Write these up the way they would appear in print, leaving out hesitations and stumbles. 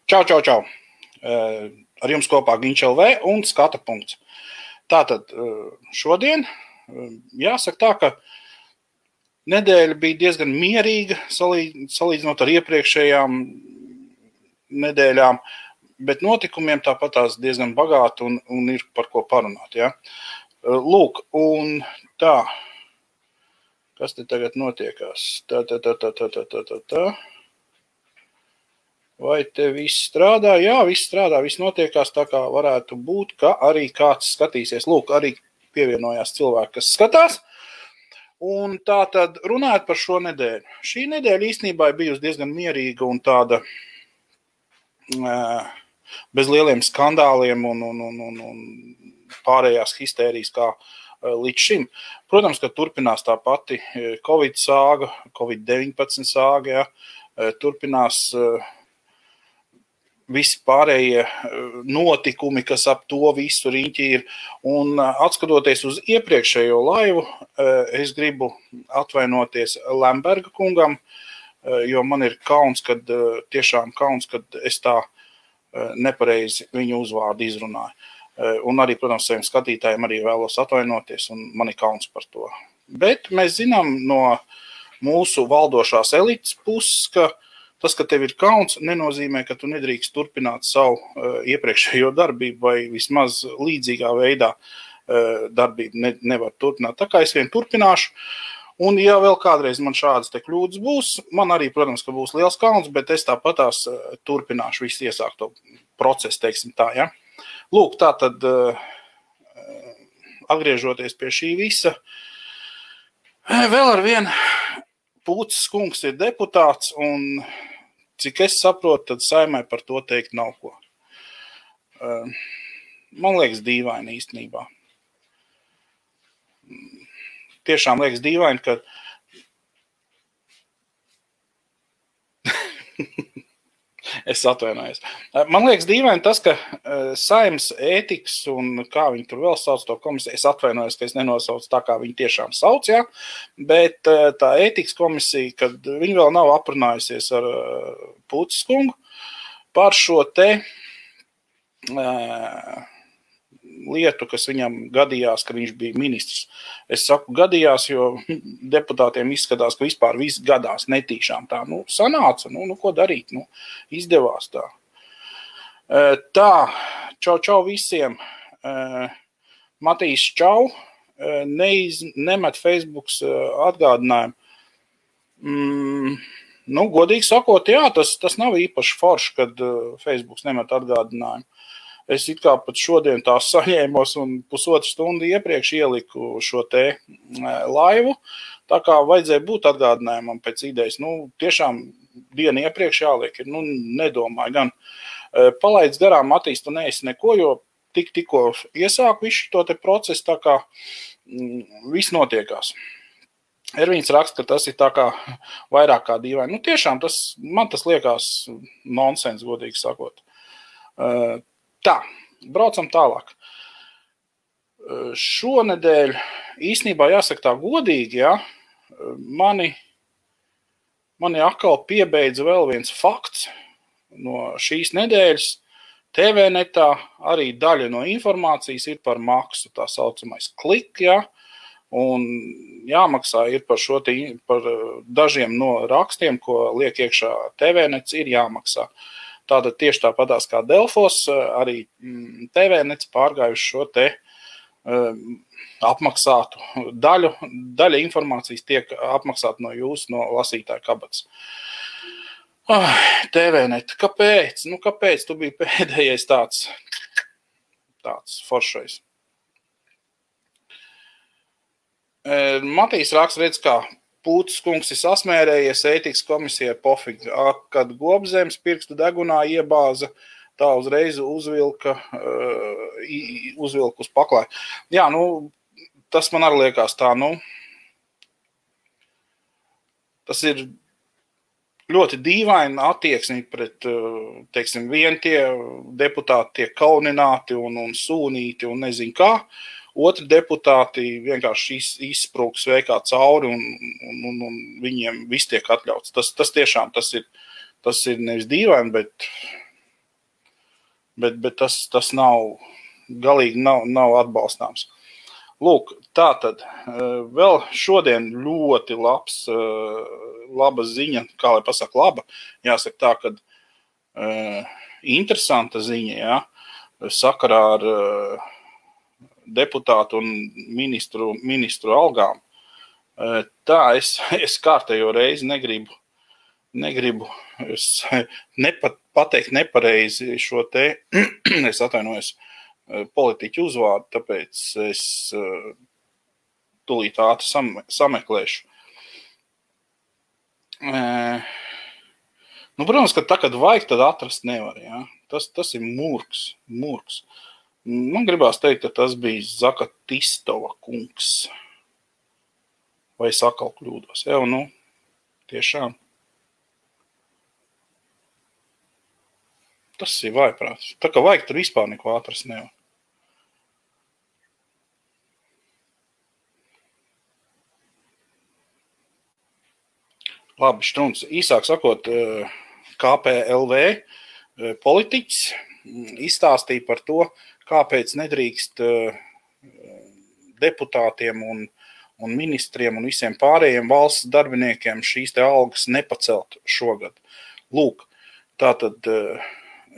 Čau, čau, čau. Ar jums kopā Ginč LV un Skata punkts. Tātad šodien jāsaka tā, ka nedēļa bija diezgan mierīga salīdzinot ar iepriekšējām nedēļām, bet notikumiem tāpatās diezgan bagāti un ir par ko parunāt. Ja? Lūk, un tā, kas te tagad notiekās? Tā. Vai te viss strādā? Jā, viss strādā, viss notiekās tā, kā varētu būt, ka arī kāds skatīsies. Lūk, arī pievienojās cilvēki, kas skatās. Un tā tad runājot par šo nedēļu. Šī nedēļa īstenībā ir bijusi diezgan mierīga un tāda bez lieliem skandāliem un pārējās histērijas kā līdz šim. Protams, ka turpinās tā pati Covid sāga, Covid-19 sāga, ja, turpinās visi pārējie notikumi, kas ap to visu riņķi ir. Un atskatoties uz iepriekšējo laivu, es gribu atvainoties Lemberga kungam, jo man ir kauns, tiešām kauns, kad es tā nepareizi viņu uzvārdu izrunāju. Un arī, protams, saviem skatītājiem arī vēlos atvainoties, un man ir kauns par to. Bet mēs zinām no mūsu valdošās elites puses, ka tas, ka tev ir kauns, nenozīmē, ka tu nedrīkst turpināt savu iepriekšējo darbību vai vismaz līdzīgā veidā darbību nevar turpināt. Tā kā es vien turpināšu, un ja vēl kādreiz man šādas te kļūdas būs, man arī, protams, ka būs liels kauns, bet es tāpatās turpināšu visu iesākto procesu, teiksim tā, ja. Lūk, tā tad atgriežoties pie šī visa, vēl ar vienu Pūces kungs ir deputāts, un cik es saprotu, tad Saeimai par to teikt nav ko. Man liekas dīvaini īstenībā. Tiešām liekas dīvaini, ka es atvainojos. Man liekas dīvaini tas, ka Saeimas ētikas un kā viņi tur vēl sauc to komisiju, es atvainojos, ka es nenosaucu tā, kā viņi tiešām sauc, ja? Bet tā ētikas komisija, kad viņi vēl nav aprunājusies ar Pūces kungu par šo te lietu, kas viņam gadījās, ka viņš bija ministrs. Es saku gadījās, jo deputātiem izskatās, ka vispār viss gadās netīšām tā. Sanāca, ko darīt, izdevās tā. Tā, čau visiem. Matīs čau, nemet Facebooks atgādinājumu. Godīgi sakot, jā, tas nav īpaši forši, kad Facebooks nemet atgādinājumu. Es it kā pat šodien tās saņēmos un pusotru stundu iepriekš ieliku šo te laivu, tā kā vajadzēja būt atgādinājumam pēc idejas. Tiešām dienu iepriekš jāliek ir, nedomāju gan. Palaidz garām, Matīs, tu neesi neko, jo tikko iesāku visu to te procesu, tā kā viss notiekās. Ervīns raksta, ka tas ir tā kā vairāk kā dīvaini. Tiešām man tas liekas nonsens, godīgi sakot. Tā, braucam tālāk. Šonedēļ īstenībā jāsaka tā godīgi, ja, mani atkal piebeidza vēl viens fakts no šīs nedēļas. TV-netā arī daļa no informācijas ir par maksu, tā saucamais klik, ja, un jāmaksā ir par dažiem no rakstiem, ko liek iekšā TV-nets, ir jāmaksā. Tātad tieši tāpatās kā Delfos, arī TV-nets pārgājuši šo te apmaksātu daļu. Daļa informācijas tiek apmaksāta no jūsu, no lasītāja kabatas. TV-net, kāpēc? Kāpēc tu biji pēdējais tāds foršais? Matīs raksta, redz, kā Pūces kungs ir sasmērējies, ētikas komisijai pofīgi, kad Gobzemes pirkstu degunā iebāza, tā uzreiz uzvilka uz paklāju. Jā, tas man arī liekas tā, tas ir ļoti dīvaina attieksmi pret, teiksim, vien tie deputāti tiek kaunināti un sūnīti un nezinu kā. Otri deputāti vienkārši izsprūks veikā cauri un viņiem viss tiek atļauts. Tas tiešām tas ir nevis dīvaini, bet bet tas nav galīgi nav atbalstāms. Lūk, tātad vēl šodien ļoti laba ziņa, kā lai pasaka laba, jāsaka tā, ka interesanta ziņa, jā, sakarā ar deputātu un ministru algām. Tā, es kārtējo reizi negribu pateikt nepareizi šo te, es atvainojos, politiķu uzvārdu, tāpēc es tūlīt ātri sameklēšu. Protams, ka tā, kad vajag, tad atrast nevar, jā. Tas ir murgs. Man gribās teikt, ka tas bija Zakatistova kungs. Vai es atkal kļūdos? Jā, tiešām. Tas ir vājprāts. Tā kā vajag, tur vispār neko atrast nevar. Labi, Štruns. Īsāk sakot, KPLV politiķis izstāstīja par to, kāpēc nedrīkst deputātiem un ministriem un visiem pārējiem valsts darbiniekiem šīs te algas nepacelt šogad. Lūk, tātad,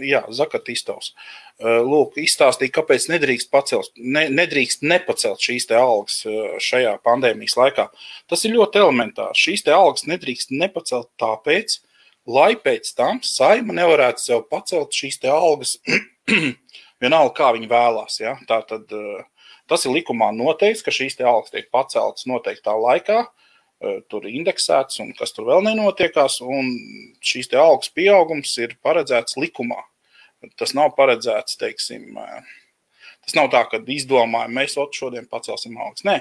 jā, Zakatistovs. Lūk, izstāstīja, kāpēc nedrīkst nepacelt šīs te algas šajā pandēmijas laikā. Tas ir ļoti elementāri. Šīs te algas nedrīkst nepacelt tāpēc, lai pēc tam Saeima nevarētu sev pacelt šīs te algas vienalga, kā viņi vēlās. Ja? Tātad, tas ir likumā noteikts, ka šīs te algas tiek paceltas noteiktā laikā, tur indeksēts un kas tur vēl nenotiekās, un šīs te algas pieaugums ir paredzēts likumā. Tas nav paredzēts, teiksim, tas nav tā, ka izdomājam, mēs šodien pacelsim algas. Nē,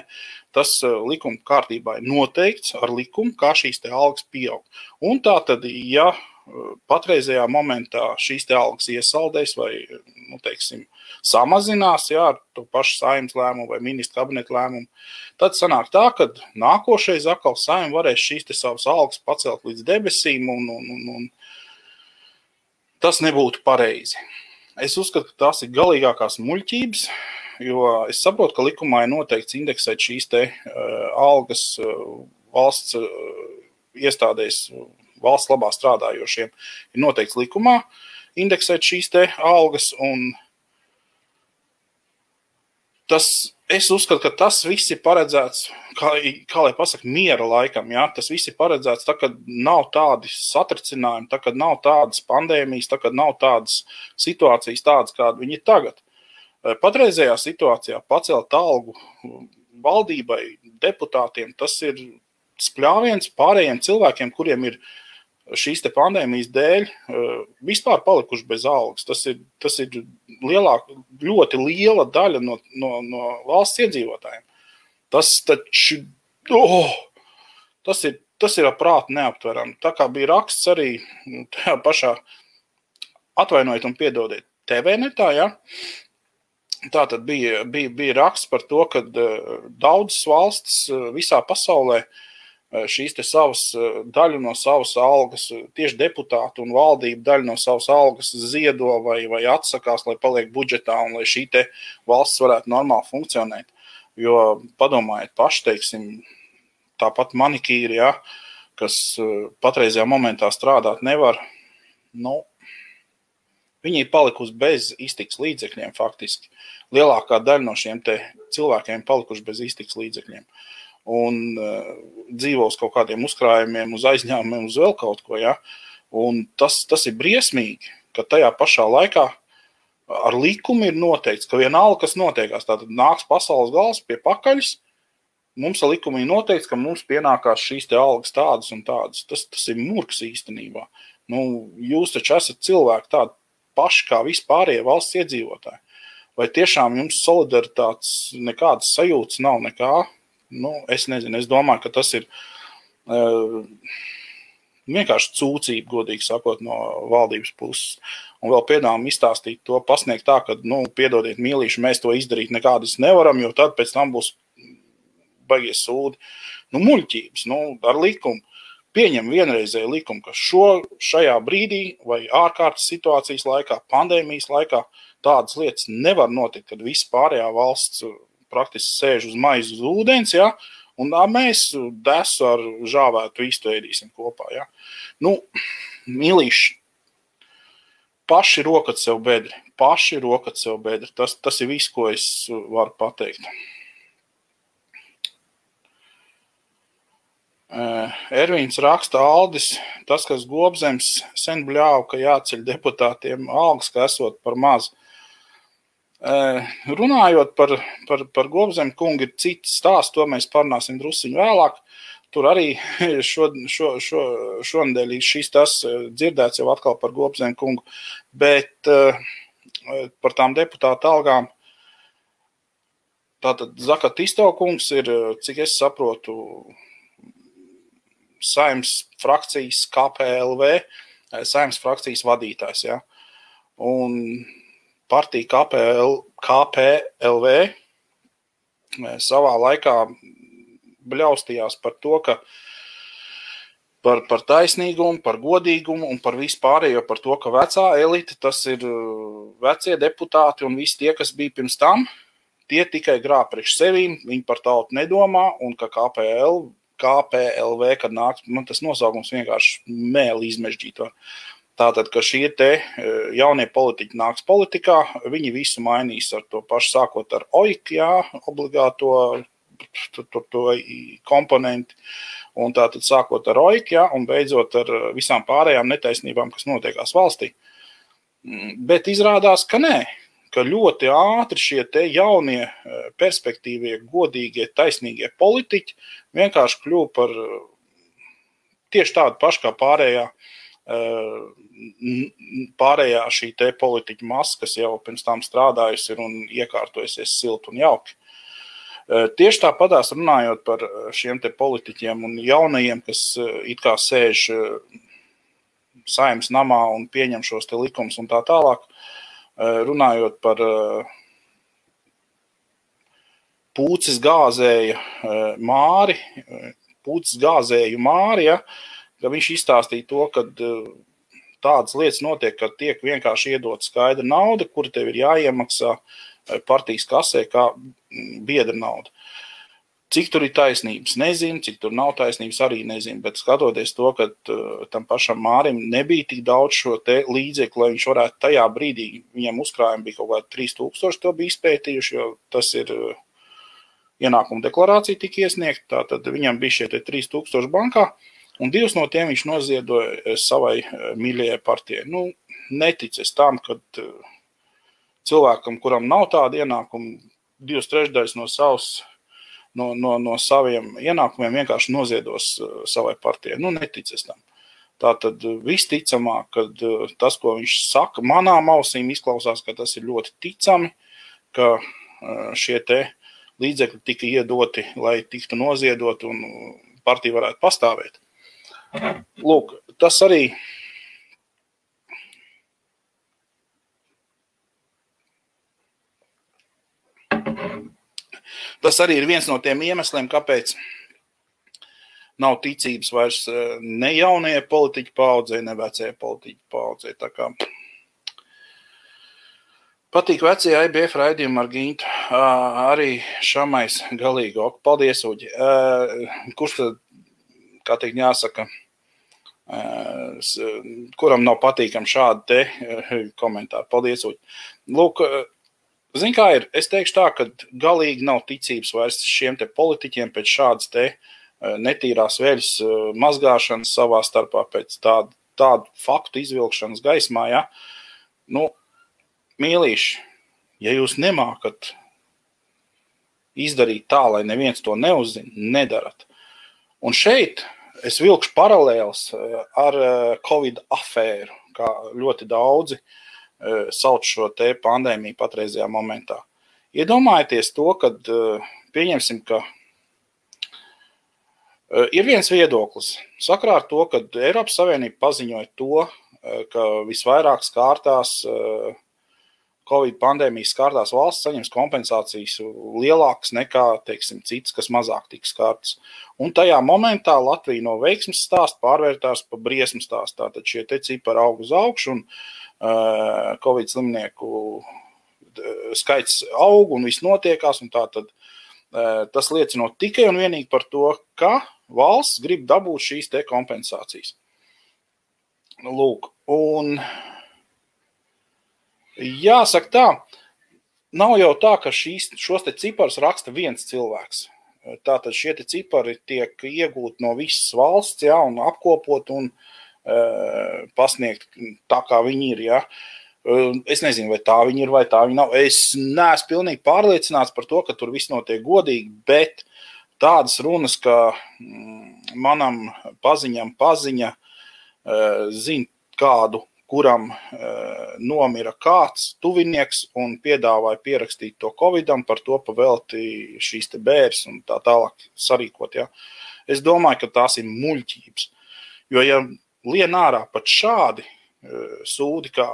tas likuma kārtībā ir noteikts ar likumu, kā šīs te algas pieaug. Un tā tad, ja patreizajā momentā šīs te algas iesaldēs vai, teiksim, samazinās, jā, ar to pašu Saeimas lēmumu vai ministra kabineta lēmumu, tad sanāk tā, ka nākošais atkal Saeima varēs šīs te savas algas pacelt līdz debesīm un tas nebūtu pareizi. Es uzskatu, ka tās ir galīgākās muļķības, jo es saprotu, ka likumā ir noteikts indeksēt šīs te algas valsts iestādēs, valsts labā strādājošiem. Ir noteikts likumā indeksēt šīs te algas, un es uzskatu, ka tas viss ir paredzēts, kā lai pasaka, miera laikam, jā? Tas viss ir paredzēts, tā, kad nav tādi satricinājumi, tā, kad nav tādas pandēmijas, tā, kad nav tādas situācijas tādas, kāda viņi ir tagad. Patreizējā situācijā pacelt algu valdībai, deputātiem, tas ir spļāviens pārējiem cilvēkiem, kuriem ir šīs te pandēmijas dēļ vispār palikuši bez algas. Tas ir ļoti liela daļa no valsts iedzīvotājiem. Tas ir prātu neaptverami. Tā kā bija raksts arī tajā pašā, atvainojiet un piedodiet, TV-netā, ja? Tātad bija raksts par to, ka daudzas valstis visā pasaulē šīs te daļu no savas algas, tieši deputātu un valdību daļu no savas algas ziedo vai atsakās, lai paliek budžetā un lai šī te valsts varētu normāli funkcionēt. Jo padomājiet paši, teiksim, tāpat manikīri, ja, kas patreizajā momentā strādāt nevar, viņi ir palikusi bez iztikas līdzekļiem faktiski. Lielākā daļa no šiem te cilvēkiem palikuši bez iztikas līdzekļiem. Un dzīvo uz kaut kādiem uzkrājumiem, uz aizņēmumiem, uz vēl kaut ko, ja. Un tas ir briesmīgi, ka tajā pašā laikā ar likumu ir noteikts, ka vienalga, kas notiekās, tātad nāks pasaules gals pie pakaļas, mums ar likumu ir noteikts, ka mums pienākās šīs te algas tādas un tādas. Tas ir murgs īstenībā. Jūs taču esat cilvēki tādi paši kā vispārējie valsts iedzīvotāji. Vai tiešām jums solidaritātes nekādas sajūtas nav nekā? Es nezinu, es domāju, ka tas ir vienkārši cūcība, godīgi sakot, no valdības puses. Un vēl piedāvājam izstāstīt to, pasniegt tā, ka, piedodiet mīlīši, mēs to izdarīt nekādas nevaram, jo tad pēc tam būs baigies sūdi. Muļķības, ar likumu. pieņem vienreizēju likumu, ka šajā brīdī vai ārkārtas situācijas laikā, pandēmijas laikā tādas lietas nevar notikt, kad viss pārējā valsts praktiski sēž uz maizi uz ūdens, ja, un mēs desu ar žāvētu vistu ēdīsim kopā. Ja. Nu, mīlīši, paši rokat sev bedri. Tas ir viss, ko es varu pateikt. Ervīns raksta Aldis, tas, kas Gobzems sen bļāva, ka jāceļ deputātiem algas, ka esot par maz. Runājot par Gobzemu kungu ir cits stāsts, to mēs parunāsim drusciņu vēlāk. Tur arī šonedēļ šis tas dzirdēts jau atkal par Gobzemu kungu, bet par tām deputāta algām. Tātad Zakatisto kungs ir, cik es saprotu, Saeimas frakcijas KPLV, Saeimas frakcijas vadītājs, ja. Un partija KPLV savā laikā bļaustījās par to, ka par taisnīgumu, par godīgumu un par vispārējo par to, ka vecā elite, tas ir vecie deputāti un visi tie, kas bija pirms tam, tie tikai grāb priekš sevīm, viņi par tautu nedomā un ka KPLV, kad nāk, man tas nosaukums vienkārši mēli izmežģīt var. Tātad, ka šie te jaunie politiķi nāks politikā, viņi visu mainīs ar to pašu sākot ar OIK, jā, obligāto to komponenti, un tātad sākot ar OIK, jā, un beidzot ar visām pārējām netaisnībām, kas notiekās valstī. Bet izrādās, ka nē, ka ļoti ātri šie te jaunie perspektīvie, godīgie, taisnīgie politiķi vienkārši kļuva par tieši tādu pašu kā pārējā šī te politiķa masa, kas jau pirms tam strādājusi ir un iekārtojusies silti un jauki. Tieši tāpatās runājot par šiem te politiķiem un jaunajiem, kas it kā sēž Saeimas namā un pieņem šos te likumus un tā tālāk, runājot par pūces gāzēju Māri, ja, ka viņš izstāstīja to, ka tādas lietas notiek, ka tiek vienkārši iedot skaidra nauda, kura tev ir jāiemaksā partijas kasē kā biedra nauda. Cik tur ir taisnības, nezinu, cik tur nav taisnības, arī nezinu, bet skatoties to, ka tam pašam Mārim nebija tik daudz šo te līdzekļu, lai viņš varētu tajā brīdī, viņam uzkrājumi bija kaut kādi 3000, to bija izpētījuši, jo tas ir ienākuma deklarācija tika iesniegta, tātad viņam bija šie te 3000 bankā, un 2 no tiem viņš noziedoja savai mīļajai partijai. Nu, neticies tam, kad cilvēkam, kuram nav tāda ienākuma, 2/3 no saviem ienākumiem vienkārši noziedos savai partijai. Nu, neticies tam. Tātad visticamāk, kad tas, ko viņš saka, manām ausīm izklausās, ka tas ir ļoti ticami, ka šie te līdzekļi tika iedoti, lai tiktu noziedot un partija varētu pastāvēt. Lūk, tas arī ir viens no tiem iemesliem, kāpēc nav ticības vairs ne jaunajai politiķu paaudzei, ne vecajai politiķu paaudzei. Tā kā patīk vecie IBF raidījumi ar Gintu. Arī Šamais galīgi. Paldies, Uģi. Kurš tad, kā teikt, jāsaka, kuram nav patīkam šādi te komentāri. Paldies, Uģi. Lūk, zin kā ir, es teikšu tā, ka galīgi nav ticības vairs šiem te politiķiem pēc šādas te netīrās veļas mazgāšanas savā starpā, pēc tādu faktu izvilkšanas gaismā, ja. Nu, mīlīši, ja jūs nemākat izdarīt tā, lai neviens to neuzzina, nedarat. Un šeit es vilkšu paralēls ar Covid afēru, kā ļoti daudzi sauc šo te pandēmiju patreizajā momentā. Iedomājieties to, kad pieņemsim, ka ir viens viedoklis. Sakarā ar to, ka Eiropas Savienība paziņoja to, ka visvairāk kārtās Covid pandēmijas skārtās valsts saņems kompensācijas lielākas nekā, teiksim, citas, kas mazāk tiks skārtas. Un tajā momentā Latvija no veiksmes stāsta pārvērtās pa briesmu stāstu. Tātad šie te cipari aug uz augšu un Covid slimnieku skaits aug un viss notiekās. Un tātad tas liecinot tikai un vienīgi par to, ka valsts grib dabūt šīs te kompensācijas. Lūk, un jāsaka tā, nav jau tā, ka šos te ciparus raksta viens cilvēks. Tātad šie te cipari tiek iegūti no visas valsts, ja, un apkopot un pasniegt tā, kā viņi ir. Ja. Es nezinu, vai tā viņi ir, vai tā viņi nav. Es neesmu pilnīgi pārliecināts par to, ka tur viss notiek godīgi, bet tādas runas, ka manam paziņa zina kādu, kuram nomira kāds tuvinieks un piedāvāja pierakstīt to Covidam, par to pavelti šīs te bēres un tā tālāk sarīkot. Ja. Es domāju, ka tās ir muļķības. Jo, ja lien ārā pat šādi sūdi kā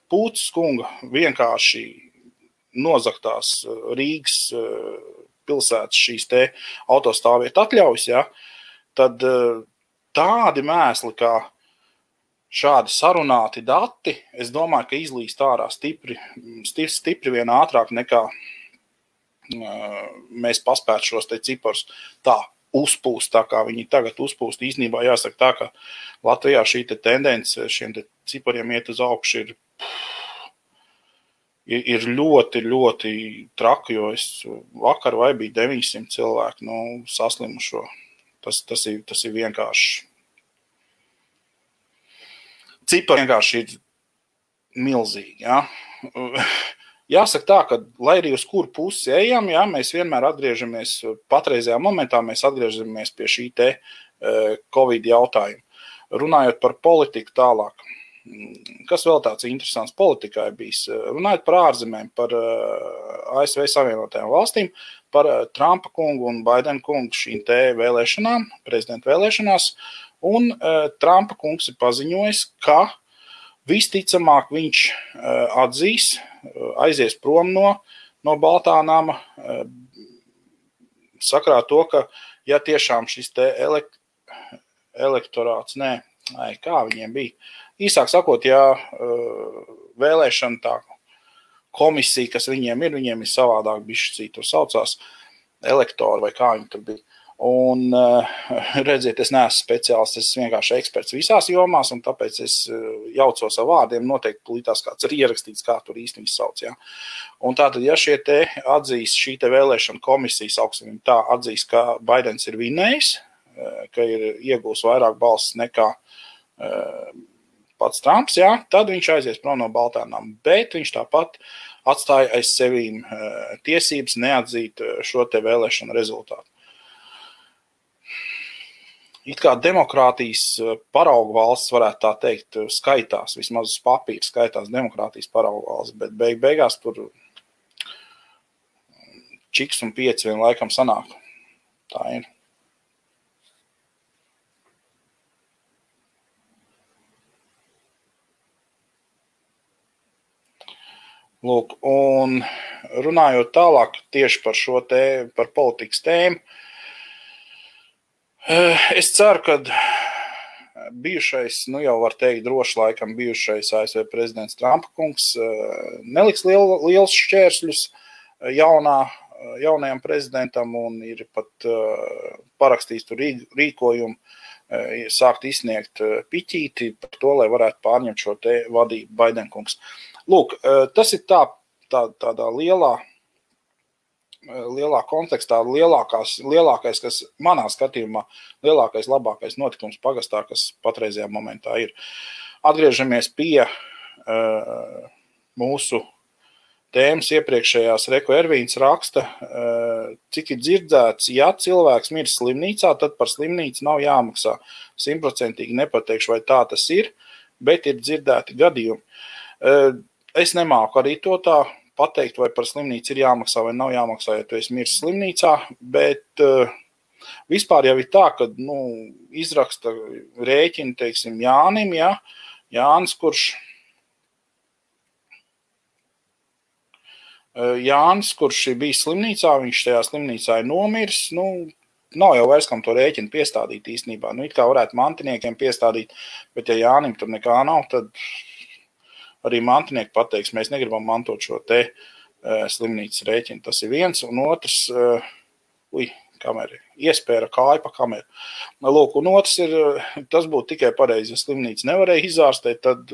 Pūces kunga vienkārši nozaktās Rīgas pilsētas šīs te autostāvvietu atļaujas, ja, tad tādi mēsli kā šādi sarunāti dati, es domāju, ka izlīst ārā stipri vien ātrāk nekā mēs paspētu šos te ciparus tā uzpūst, tā kā viņi tagad uzpūst. Īstenībā jāsaka tā, ka Latvijā šī te tendence šiem te cipariem iet uz augšu ir ļoti, ļoti traki, jo es vakar vai bija 900 cilvēku, saslimušo. Tas ir vienkārši. Cipari vienkārši ir milzīgi. Ja? Jāsaka tā, ka lai arī uz kuru pusi ejam, ja, mēs vienmēr atgriežamies, patreizajā momentā mēs atgriežamies pie šī te Covid jautājuma. Runājot par politiku tālāk, kas vēl tāds interesants politikā ir bijis, runājot par ārzemēm, par ASV Savienotajām valstīm, par Trumpa kungu un Baidena kungu šīm te vēlēšanām, prezidenta vēlēšanās, un Trumpa kungs ir paziņojis, ka visticamāk viņš atzīs, aizies prom no Baltā nama, sakrā to, ka ja tiešām šis te elektorāts, kā viņiem bija, īsāk sakot, ja vēlēšana tā komisija, kas viņiem ir savādāk bišķi to saucās, elektori vai kā viņi tur bija. Un redziet, es neesmu speciālists, es vienkārši eksperts visās jomās, un tāpēc es jaucos ar vārdiem, noteikti plītās kāds ir ierakstīts, kā tur īsti viņi sauc. Ja? Un tātad, ja šie te atzīs, šī te vēlēšana komisija, sauksim tā, atzīs, ka Baidens ir vinējis, ka ir iegūs vairāk balsis nekā pats Trumps, ja? Tad viņš aizies prom no Baltām, bet viņš tāpat atstāja aiz sevīm tiesības neatzīt šo te vēlēšanu rezultātu. It kā demokrātijas paraugu valsts, varētu tā teikt, skaitās, vismaz uz papīra skaitās demokrātijas paraugu valsts, bet beigās tur čiks un 5 vien laikam sanāk. Tā ir. Lūk, un runājot tālāk tieši par šo par politikas tēmu, es ceru, ka bijušais, jau var teikt droši laikam bijušais ASV prezidents Trumpa kungs neliks liels šķērsļus jaunajam prezidentam un ir pat parakstījis tur rīkojumu, sākt izsniegt piķīti par to, lai varētu pārņemt šo te vadību Baidena kungs. Lūk, tas ir tādā lielā kontekstā, lielākais, kas manā skatījumā, lielākais, labākais notikums pagastā, kas patreizajā momentā ir. Atgriežamies pie mūsu tēmas iepriekšējās. Reko Ervīns raksta, cik ir dzirdēts, ja cilvēks mirs slimnīcā, tad par slimnīcu nav jāmaksā. 100% nepateikšu, vai tā tas ir, bet ir dzirdēti gadījumi. Es nemāku arī to tā pateikt, vai par slimnīcu ir jāmaksā vai nav jāmaksā, ja tu esi miris slimnīcā, bet vispār jau ir tā, ka izraksta rēķini, teiksim, Jānim, ja? Jānis, kurš Jānis, kurš bija slimnīcā, viņš tajā slimnīcā ir nomiris, nav jau vairs kam to rēķinu piestādīt īstenībā. It kā varētu mantiniekiem piestādīt, bet ja Jānim tur nekā nav, tad arī mantinieki pateiks, mēs negribam mantot šo te slimnīcas rēķinu. Tas ir viens, un otrs, kamera iespēra kāju pa kameru. Lūk, un otrs ir, tas būtu tikai pareizi, ja slimnīca nevarēja izārstēt, tad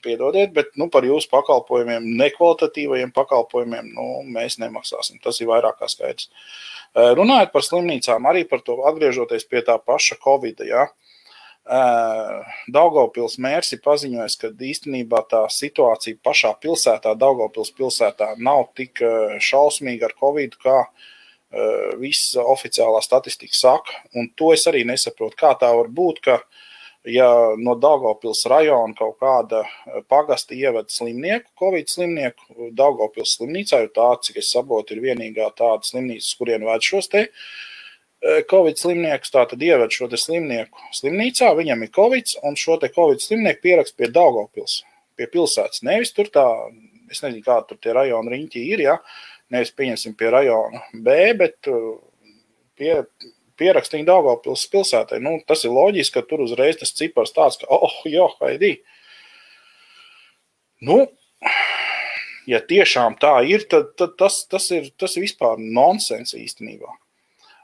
piedodiet, bet par jūsu pakalpojumiem, nekvalitatīvajiem pakalpojumiem, mēs nemaksāsim. Tas ir vairāk kā skaidrs. Runājot par slimnīcām, arī par to atgriežoties pie tā paša Covida, ja, Daugavpils mērs ir paziņojis, ka īstenībā tā situācija pašā pilsētā, Daugavpils pilsētā, nav tik šausmīga ar Covidu, kā viss oficiālā statistika saka. Un to es arī nesaprotu, kā tā var būt, ka ja no Daugavpils rajona kaut kāda pagasta ievada slimnieku, Covid slimnieku, Daugavpils slimnīcā, jo tā, cik es saprotu, ir vienīgā tāda slimnīca, kurien ved šos te Covid slimniekus, tā tad ieved šo te slimnieku slimnīcā, viņam ir Covid, un šo te Covid slimnieku pierakst pie Daugavpils, pie pilsētas. Nevis tur tā, es nezinu, kā tur tie rajona riņķi ir, ja, nevis pieņemsim pie rajona B, bet pierakstīja Daugavpils pilsētai. Tas ir loģiski, ka tur uzreiz tas cipars tāds, ka, haidī. Ja tiešām tā ir, tad tas ir vispār nonsens īstenībā.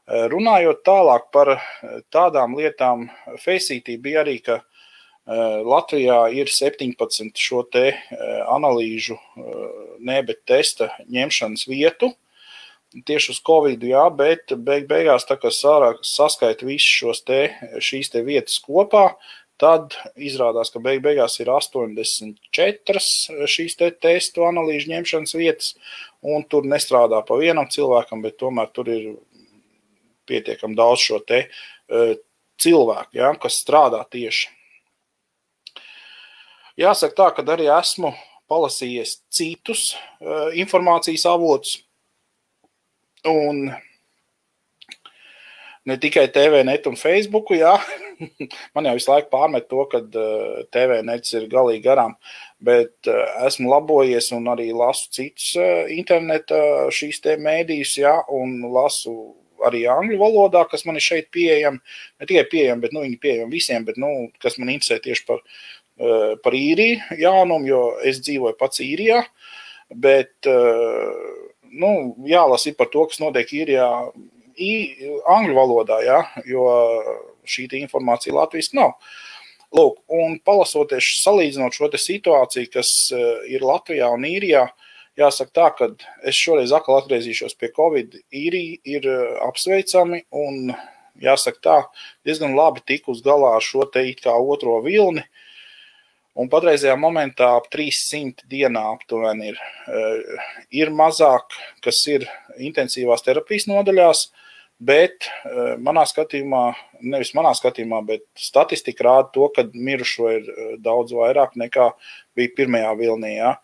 Runājot tālāk par tādām lietām, Facetī bija arī, ka Latvijā ir 17 šo te analīžu, bet testa ņemšanas vietu, tieši uz Covidu, jā, bet beigās, tā kā saskaita visus šīs te vietas kopā, tad izrādās, ka beigās ir 84 šīs te testu analīžu ņemšanas vietas, un tur nestrādā pa vienam cilvēkam, bet tomēr tur ir pietiekam daudz šo te cilvēku, ja, kas strādā tieši. Jāsaka tā, ka arī esmu palasījies citus informācijas avotus, un ne tikai TVNet un Facebooku, jā, man jau visu laiku pārmet to, ka TVNets ir galīgi garām, bet esmu labojies un arī lasu citus interneta šīs te mēdījus, jā, un lasu arī angļu valodā, kas man ir šeit pieejami, ne tikai pieejami, bet viņi pieejami visiem, bet kas man interesē tieši par īriju jaunumu, jo es dzīvoju pats īrijā, bet jālasa par to, kas notiek īrijā angļu valodā, ja, jo šī informācija latviski nav. Lūk, un palasoties, salīdzinot šo te situāciju, kas ir Latvijā un īrijā, jāsaka tā, ka es šoreiz atkal atgriezīšos pie Covid, īrija ir apsveicami un jāsaka tā, diezgan labi tik uz galā ar šo te it kā otro vilni. Un patreizajā momentā ap 300 dienā aptuveni ir mazāk, kas ir intensīvās terapijas nodaļās, bet manā skatījumā, nevis manā skatījumā, bet statistika rāda to, ka mirušo ir daudz vairāk nekā bija pirmajā vilnī, jā.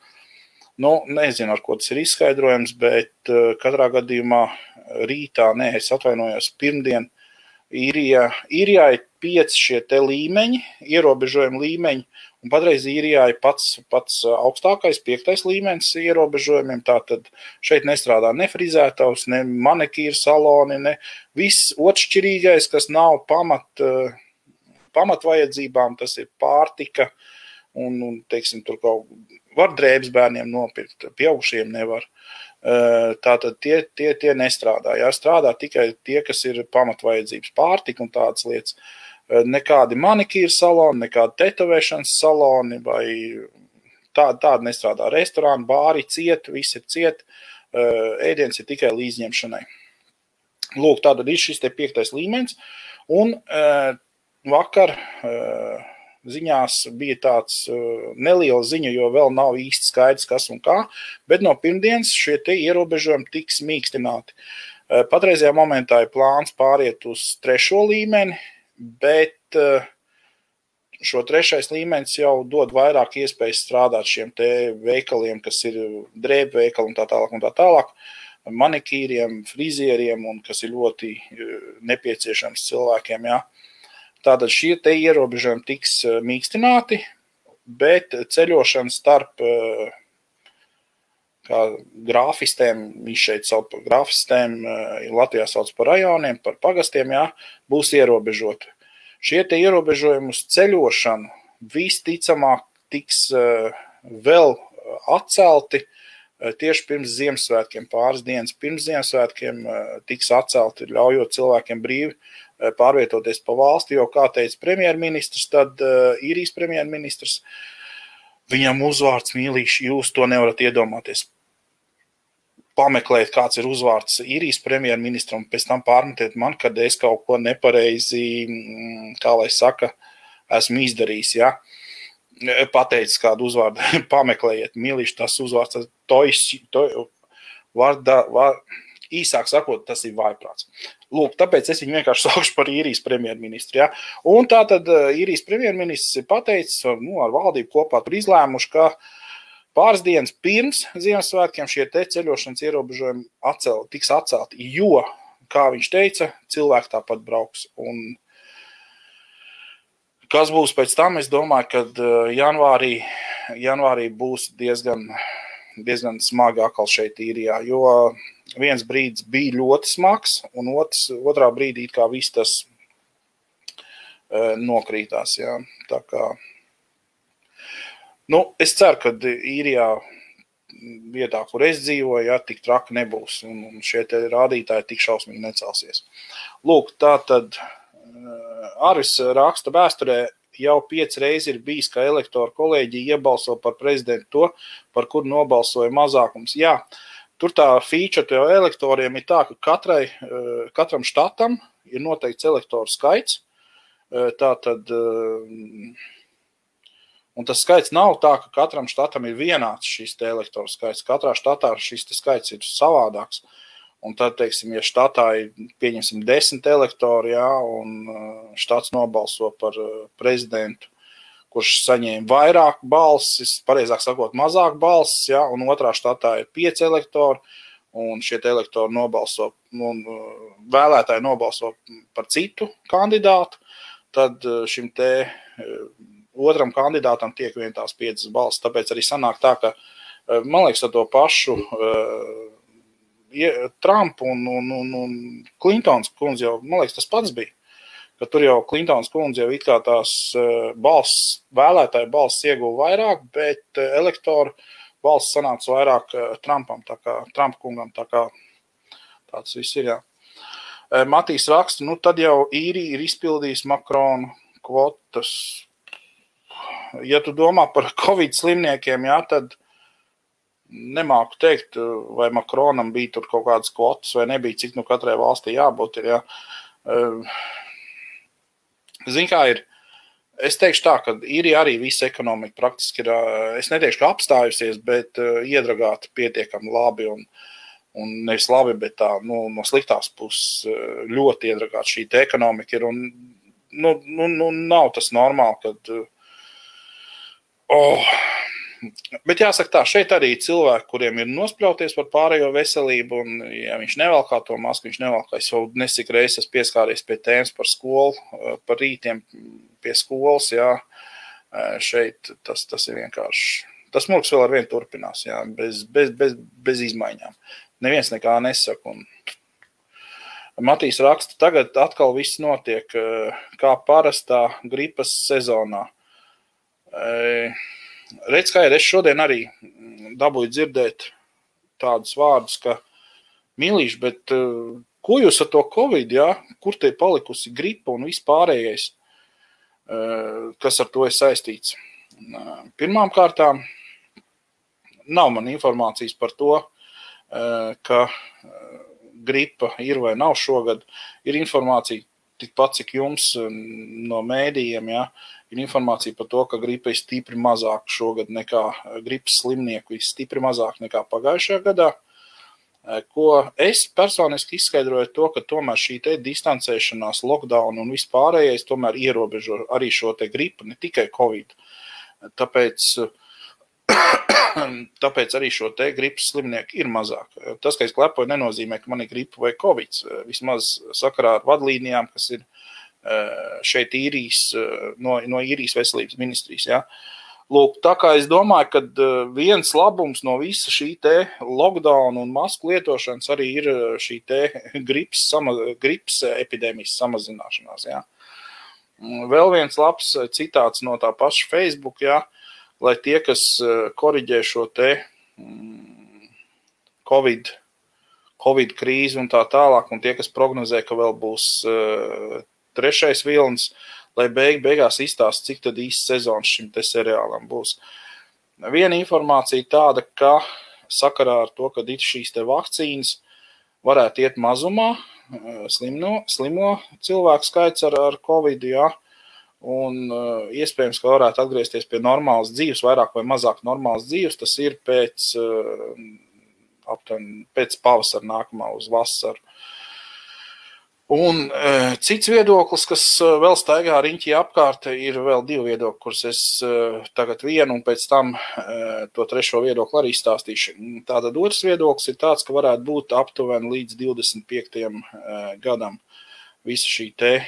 Nezinu, ar ko tas ir izskaidrojams, bet katrā gadījumā rītā, es atvainojos, pirmdien īrijā ir 5 šie te līmeņi, ierobežojumi līmeņi, un patreiz īrijā ir pats augstākais, 5. līmenis ierobežojumiem, tātad šeit nestrādā ne frizētavs, ne manikīra saloni, ne viss otršķirīgais, kas nav pamatvajadzībām, tas ir pārtika, un teiksim, tur kaut var drēbes bērniem nopirkt, pieaugušiem nevar. Tātad tie nestrādā. Jā, strādā tikai tie, kas ir pamatvajadzības, pārtika un tādas lietas. Nekādi manikīra saloni, nekādi tetovēšanas saloni vai tādi nestrādā. Restorāni, bāri ciet, viss ir ciet, ēdiens ir tikai līdzņemšanai. Lūk, tātad ir šis te 5. līmenis, un vakar ziņās bija tāds neliels ziņa, jo vēl nav īsti skaidrs, kas un kā, bet no pirmdienas šie te ierobežojumi tiks mīkstināti. Patreizajā momentā ir plāns pāriet uz 3. līmeni, bet šo 3. līmenis jau dod vairāk iespējas strādāt šiem te veikaliem, kas ir drēbu veikali un tā tālāk, manikīriem, frizieriem un kas ir ļoti nepieciešams cilvēkiem, jā. Tātad šie te ierobežojumi tiks mīkstināti, bet ceļošana kā grāfistēm, viņš šeit sauc par grāfistēm, Latvijā sauc par rajoniem, par pagastiem, jā, būs ierobežoti. Šie te ierobežojumi uz ceļošanu visticamāk tiks vēl atcelti tieši pirms Ziemassvētkiem, pāris dienas pirms Ziemassvētkiem tiks atcelti, ļaujot cilvēkiem brīvi pārvietoties pa valsti, jo, kā teica premjerministrs, tad īrijas premjerministrs, viņam uzvārds Mīlīši, jūs to nevarat iedomāties. Pameklēt, kāds ir uzvārds īrijas premjerministram, pēc tam pārmetiet man, kad es kaut ko nepareizi, kā lai saka, esmu izdarījis, ja? Pateicis kādu uzvārdu, pameklējiet, Mīlīši, tas uzvārds, īsāk sakot, tas ir vājprāts. Lūk, tāpēc es viņu vienkārši saukšu par īrijas premjerministru, ja? Un tātad īrijas premjerministrs ir pateicis, ar valdību kopā tur izlēmuši, ka pāris dienas pirms Ziemassvētkiem šie te ceļošanas ierobežojumi tiks atcelti, jo, kā viņš teica, cilvēki tāpat brauks. Un kas būs pēc tam, es domāju, kad janvārī būs diezgan smagi atkal šeit īrijā, jo viens brīdis bija ļoti smags, un otrā brīdī kā viss tas nokrītās. Jā. Tā kā, es ceru, ka īrijā vietā, kur es dzīvoju, jā, tik traki nebūs, un šie te rādītāji tik šausmīgi necelsies. Lūk, tā tad Aris raksta vēsturē, jau 5 reizes ir bijis, ka elektoru kolēģija iebalso par prezidentu to, par kuru nobalsoja mazākums. Jā, tur tā feature elektoriem ir tā, ka katram štatam ir noteikts elektoru skaits. Tātad, un tas skaits nav tā, ka katram štatam ir vienāds šis te elektoru skaits. Katrā štatā šis te skaits ir savādāks. Un tad, teiksim, ja štatā ir, pieņemsim, 10 elektori, jā, un štats nobalso par prezidentu, kurš saņēma vairāk balsis, pareizāk sakot, mazāk balsis, jā, un otrā štatā ir 5 elektori, un šie elektori nobalso, un vēlētāji nobalso par citu kandidātu, tad šim te otram kandidātam tiek vien tās 5 balsis. Tāpēc arī sanāk tā, ka, man liekas, ar to pašu Trump un Clintons kundze jau, man liekas, tas pats bija, ka tur jau Clintons kundze jau it kā tās vēlētāju balsis ieguva vairāk, bet elektoru balsis sanāca vairāk Trumpam, tā kā Trump kungam, tā kā tāds viss ir, jā. Matīs raksta, tad jau īrija ir izpildījis Makrona kvotas. Ja tu domā par Covid slimniekiem, jā, tad nemāku teikt, vai Makronam bija tur kaut kādas kvotas, vai nebija, cik katrai valstī jābūt ir, jā. Zin kā ir, es teikšu tā, ka īrija arī visa ekonomika praktiski ir, es neteikšu, ka apstājusies, bet iedragāta pietiekami labi un nevis labi, bet tā, no sliktās puses ļoti iedragāta šī te ekonomika ir, un nav tas normāli, kad, bet jāsaka tā, šeit arī cilvēki, kuriem ir nospļauties par pārējo veselību, un ja viņš nevalkā to masku, viņš nevalkā, es jau nesik reizes pieskāries pie tēmas par skolu, par rītiem pie skolas, jā, šeit tas ir vienkārši, tas murgs vēl ar vienu turpinās, jā, bez izmaiņām. Neviens nekā nesaka, un Matīs raksta, tagad atkal viss notiek kā parastā gripas sezonā. Redz, kā ir, es šodien arī dabūju dzirdēt tādus vārdus, ka Mīlīši, bet ko jūs ar to Covid, jā? Kur te palikusi gripa un viss pārējais, kas ar to ir saistīts? Pirmām kārtām nav man informācijas par to, ka gripa ir vai nav šogad. Ir informācija tikpat, cik jums no mēdījiem, jā, ir informācija par to, ka gripa ir stipri mazāk šogad nekā gripas slimnieku, ir stipri mazāk nekā pagājušajā gadā. Ko es personiski izskaidroju to, ka tomēr šī te distancēšanās, lockdown un vispārējais tomēr ierobežo arī šo te gripu, ne tikai Covid. Tāpēc arī šo te gripas slimnieku ir mazāk. Tas, ka es klepoju, nenozīmē, ka man ir gripa vai Covid. Vismaz sakarā ar vadlīnijām, kas ir šeit īrijas, no īrijas veselības ministrijas. Ja? Lūk, tā kā es domāju, ka viens labums no visa šī te lockdown un masku lietošanas arī ir šī te gripas epidēmijas samazināšanās. Jā. Vēl viens labs citāts no tā paša Facebook, jā, lai tie, kas koriģē šo te Covid krīzi un tā tālāk, un tie, kas prognozē, ka vēl būs trešais vilnis, lai beigās izstāst, cik tad īsts sezons šim te seriālam būs. Viena informācija tāda, ka sakarā ar to, ka šīs te vakcīnas varētu iet mazumā, slimo cilvēku skaits ar Covid, jā, un iespējams, ka varētu atgriezties pie normālas dzīves, vairāk vai mazāk normālas dzīves, tas ir pēc pavasara nākamā uz vasaru. Un cits viedoklis, kas vēl staigā riņķī apkārt, ir vēl divi viedokļi, kurus es tagad vienu un pēc tam to trešo viedokli arī stāstīšu. Tātad otrs viedoklis ir tāds, ka varētu būt aptuveni līdz 25. gadam visa šī te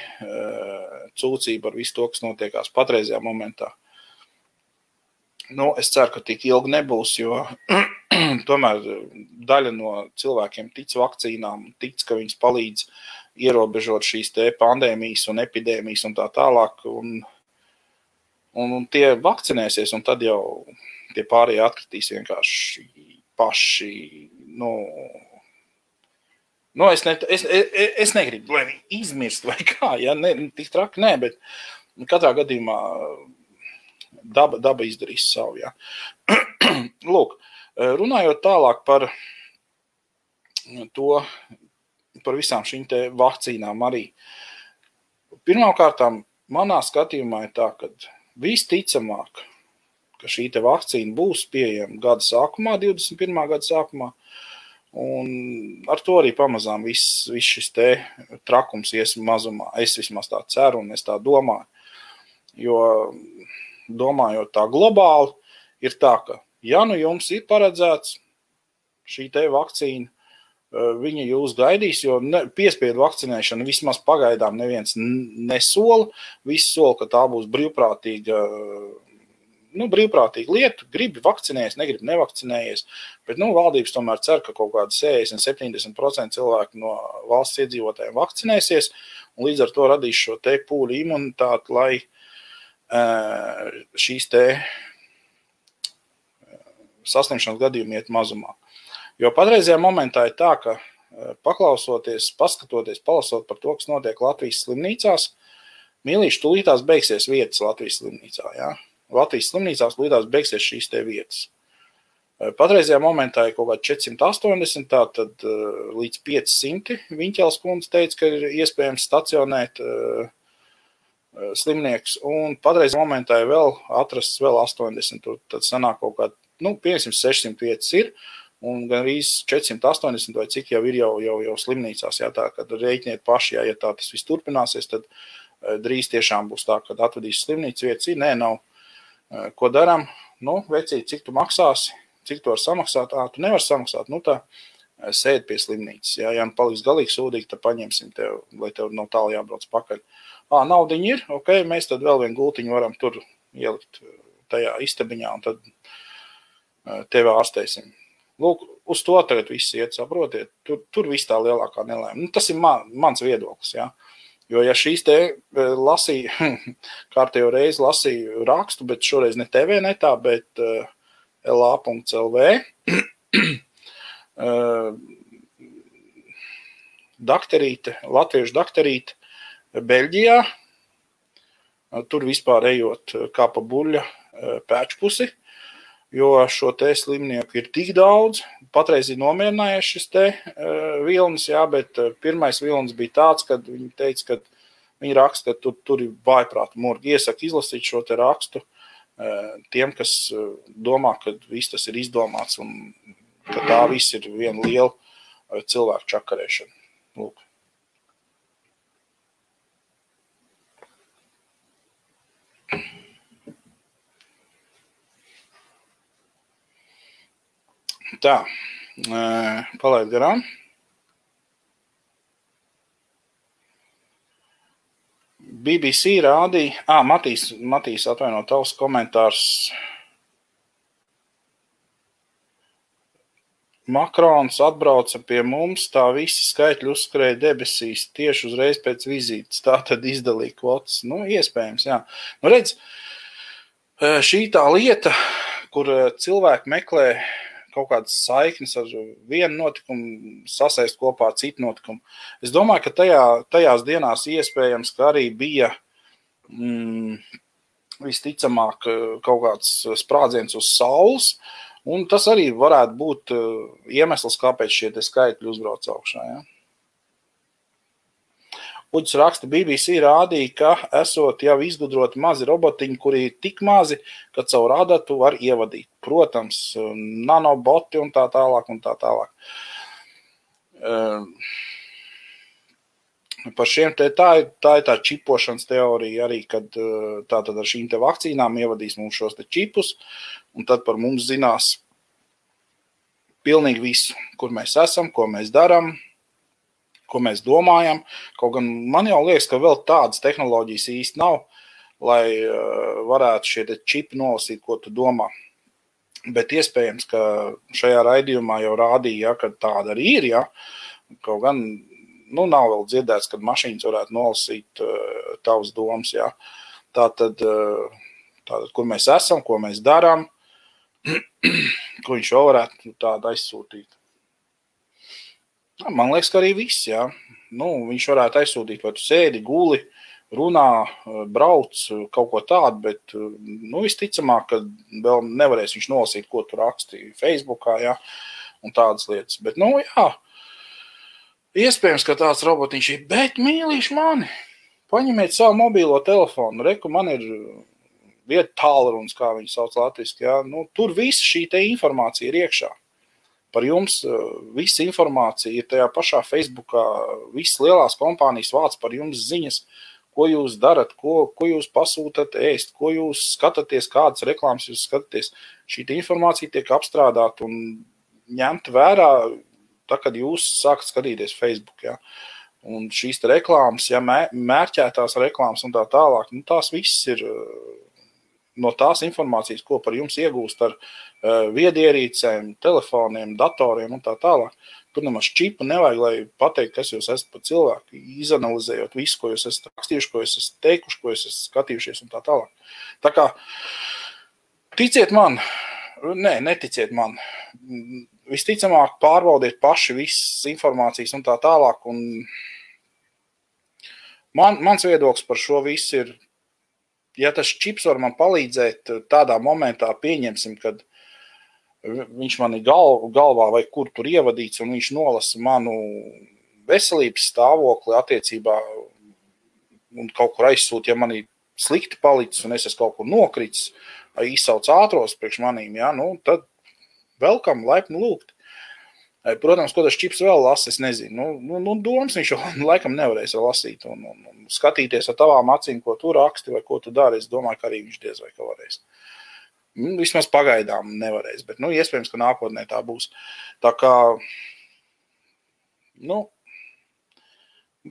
cūcība ar visu to, kas notiekās patreizajā momentā. Nu, es ceru, ka tik ilgi nebūs, jo tomēr daļa no cilvēkiem tic vakcīnām, tic, ka viņas palīdz ierobežot šīs te pandēmijas un epidēmijas un tā tālāk, un tie vakcinēsies, un tad jau tie pārējie atkritīs vienkārši paši, es negribu, lai viņi izmirst vai kā, ja, tik traki nē, bet katrā gadījumā daba izdarīs savu, ja. Lūk, runājot tālāk par to, par visām šīm te vakcīnām arī. Pirmkārtām, manā skatījumā ir tā, ka visticamāk, ka šī te vakcīna būs pieejama gada sākumā, 21. gada sākumā, un ar to arī pamazām viss šis te trakums ies mazumā. Es vismaz tā ceru un es tā domāju, jo domājot tā globāli, ir tā, ka ja nu jums ir paredzēts šī te vakcīna, viņa jūs gaidīs, jo piespiedu vakcinēšana vismaz pagaidām neviens nesola. Visi sola, ka tā būs brīvprātīga lieta. Gribi vakcinējies, negribi nevakcinējies. Bet valdības tomēr cer, ka kaut kādi 60-70% cilvēku no valsts iedzīvotājiem vakcinēsies, un līdz ar to radīs šo te pūļu imunitāti, lai šīs te saslimšanas gadījumi iet mazumā. Jo patreizajā momentā ir tā, ka paklausoties, paskatoties, palasot par to, kas notiek Latvijas slimnīcās, mīlīši tūlītās beigsies vietas Latvijas slimnīcā. Ja? Latvijas slimnīcās tūlītās beigsies šīs te vietas. Patreizajā momentā ir kaut kā 480, tātad līdz 500 Viņķels kundze teica, ka ir iespējams stacionēt slimnieks, un patreizajā momentā ir vēl atrasts vēl 80, tad sanāk kaut kā, 500-600 vietas ir, un gan arī 480 vai cik jau ir jau slimnīcās, jā, tā, kad rēķiniet paši, jā, ja tā tas viss turpināsies, tad drīz tiešām būs tā, kad atvedīs slimnīcas vietas, nē, nav. Ko daram? Vecīt, cik tu maksāsi, cik tu var samaksāt, tu nevar samaksāt, tā sēd pie slimnīcas, jā, ja paliks galīgi sūdīgi, tad paņemsim tev, lai tev nav tālu jābrauc pakaļ. Naudiņi ir, ok, mēs tad vēl vienu gultiņu varam tur ielikt tajā istabiņā, un tad tevi ārstēsim. Lūk, uz to tagad viss iet, saprotiet, tur viss tā lielākā nelēma. Tas ir mans viedoklis, jā. Jo ja šīs te lasīju, kārtējo reizi lasīju rakstu, bet šoreiz ne TV netā, bet LA.lv, latviešu dakterīte Beļģijā, tur vispār ejot kā pa buļļa pēčpusi, jo šo te slimnieku ir tik daudz, patreiz ir nomierinājies šis te vilnis, jā, bet pirmais vilnis bija tāds, kad viņi teica, ka viņi raksta, ka tur ir vājprāta murgi. Iesaka izlasīt šo te rakstu tiem, kas domā, ka viss tas ir izdomāts un ka tā viss ir viena liela cilvēku čakarēšana. Lūk. Tā, palaid garām. BBC rādīja, Matīs atvaino tavs komentārs. Makrons atbrauca pie mums, tā visi skaitļi uzskrēja debesīs tieši uzreiz pēc vizītes. Tā tad izdalīja kvotas. Nu, iespējams, jā. Nu, redz, šī tā lieta, kur cilvēki meklē kaut kādas saiknes ar vienu notikumu, sasaist kopā ar citu notikumu. Es domāju, ka tajās dienās iespējams, ka arī bija visticamāk kaut kāds sprādziens uz saules, un tas arī varētu būt iemesls, kāpēc šie te skaitļi uzbrauc augšā. Ja? Uģis raksta, BBC rādīja, ka esot jau izgudroti mazi robotiņi, kuri ir tik mazi, ka caur adatu var ievadīt. Protams, nanoboti un tā tālāk un tā tālāk. Par šiem tā ir tā čipošanas teorija arī, kad tātad ar šīm te vakcīnām ievadīs mums šos te čipus, un tad par mums zinās pilnīgi visu, kur mēs esam, ko mēs darām, ko mēs domājam. Kaut gan man jau liekas, ka vēl tādas tehnoloģijas īsti nav, lai varētu šie te čipi nolasīt, ko tu domā. Bet iespējams, ka šajā raidījumā jau rādīja, ja, ka tāda arī ir, ja. Kaut gan, nav vēl dzirdēts, kad mašīnas varētu nolasīt tavas domas, ja. Tātad, kur mēs esam, ko mēs darām, ko viņš jau varētu tādu aizsūtīt. Man liekas, ka arī viss, jā. Viņš varētu aizsūtīt, vai tu sēdi, guli, runā, brauc, kaut ko tādu, bet, visticamāk, ka vēl nevarēs viņš nolasīt, ko tu raksti Facebookā, jā, un tādas lietas. Bet, jā, iespējams, ka tāds robotiņš ir, bet mīlīši mani, paņemiet savu mobīlo telefonu, reku, man ir vieta tālrunis, kā viņi sauc latviski, jā, tur visa šī te informācija ir iekšā. Par jums visa informācija ir tajā pašā Facebookā, visas lielās kompānijas vāc par jums ziņas, ko jūs darat, ko jūs pasūtat ēst, ko jūs skatāties, kādas reklāmas jūs skatāties. Šī informācija tiek apstrādāta un ņemta vērā, tā, kad jūs sākat skatīties Facebook. Ja? Un šīs reklāmas, ja mērķētās reklāmas un tā tālāk, tās viss ir no tās informācijas, ko par jums iegūst ar viedierīcēm, telefoniem, datoriem un tā tālāk. Tur nemaz čipu nevajag, lai pateikt, kas jūs esat par cilvēku, izanalizējot visu, ko jūs esat rakstījuši, ko jūs esat teikuši, ko jūs esat skatījušies un tā tālāk. Tā kā, ticiet man, neticiet man, visticamāk pārbaudiet paši visas informācijas un tā tālāk. Un mans viedoklis par šo visu ir, ja tas čips var man palīdzēt tādā momentā, pieņemsim, kad viņš man ir galvā vai kur tur ievadīts un viņš nolasa manu veselības stāvokli attiecībā un kaut kur aizsūt, ja man ir slikti palicis un es esmu kaut kur nokritis vai izsauc ātros priekš manīm, ja, tad welcome, laipni lūgt. Protams, ko tas čips vēl lasa, es nezinu. Domas viņš jau laikam nevarēs vēl lasīt un skatīties ar tavām acīm, ko tu raksti vai ko tu dari. Es domāju, ka arī viņš diez vai ka varēs. Vismaz pagaidām nevarēs, bet, iespējams, ka nākotnē tā būs. Tā kā,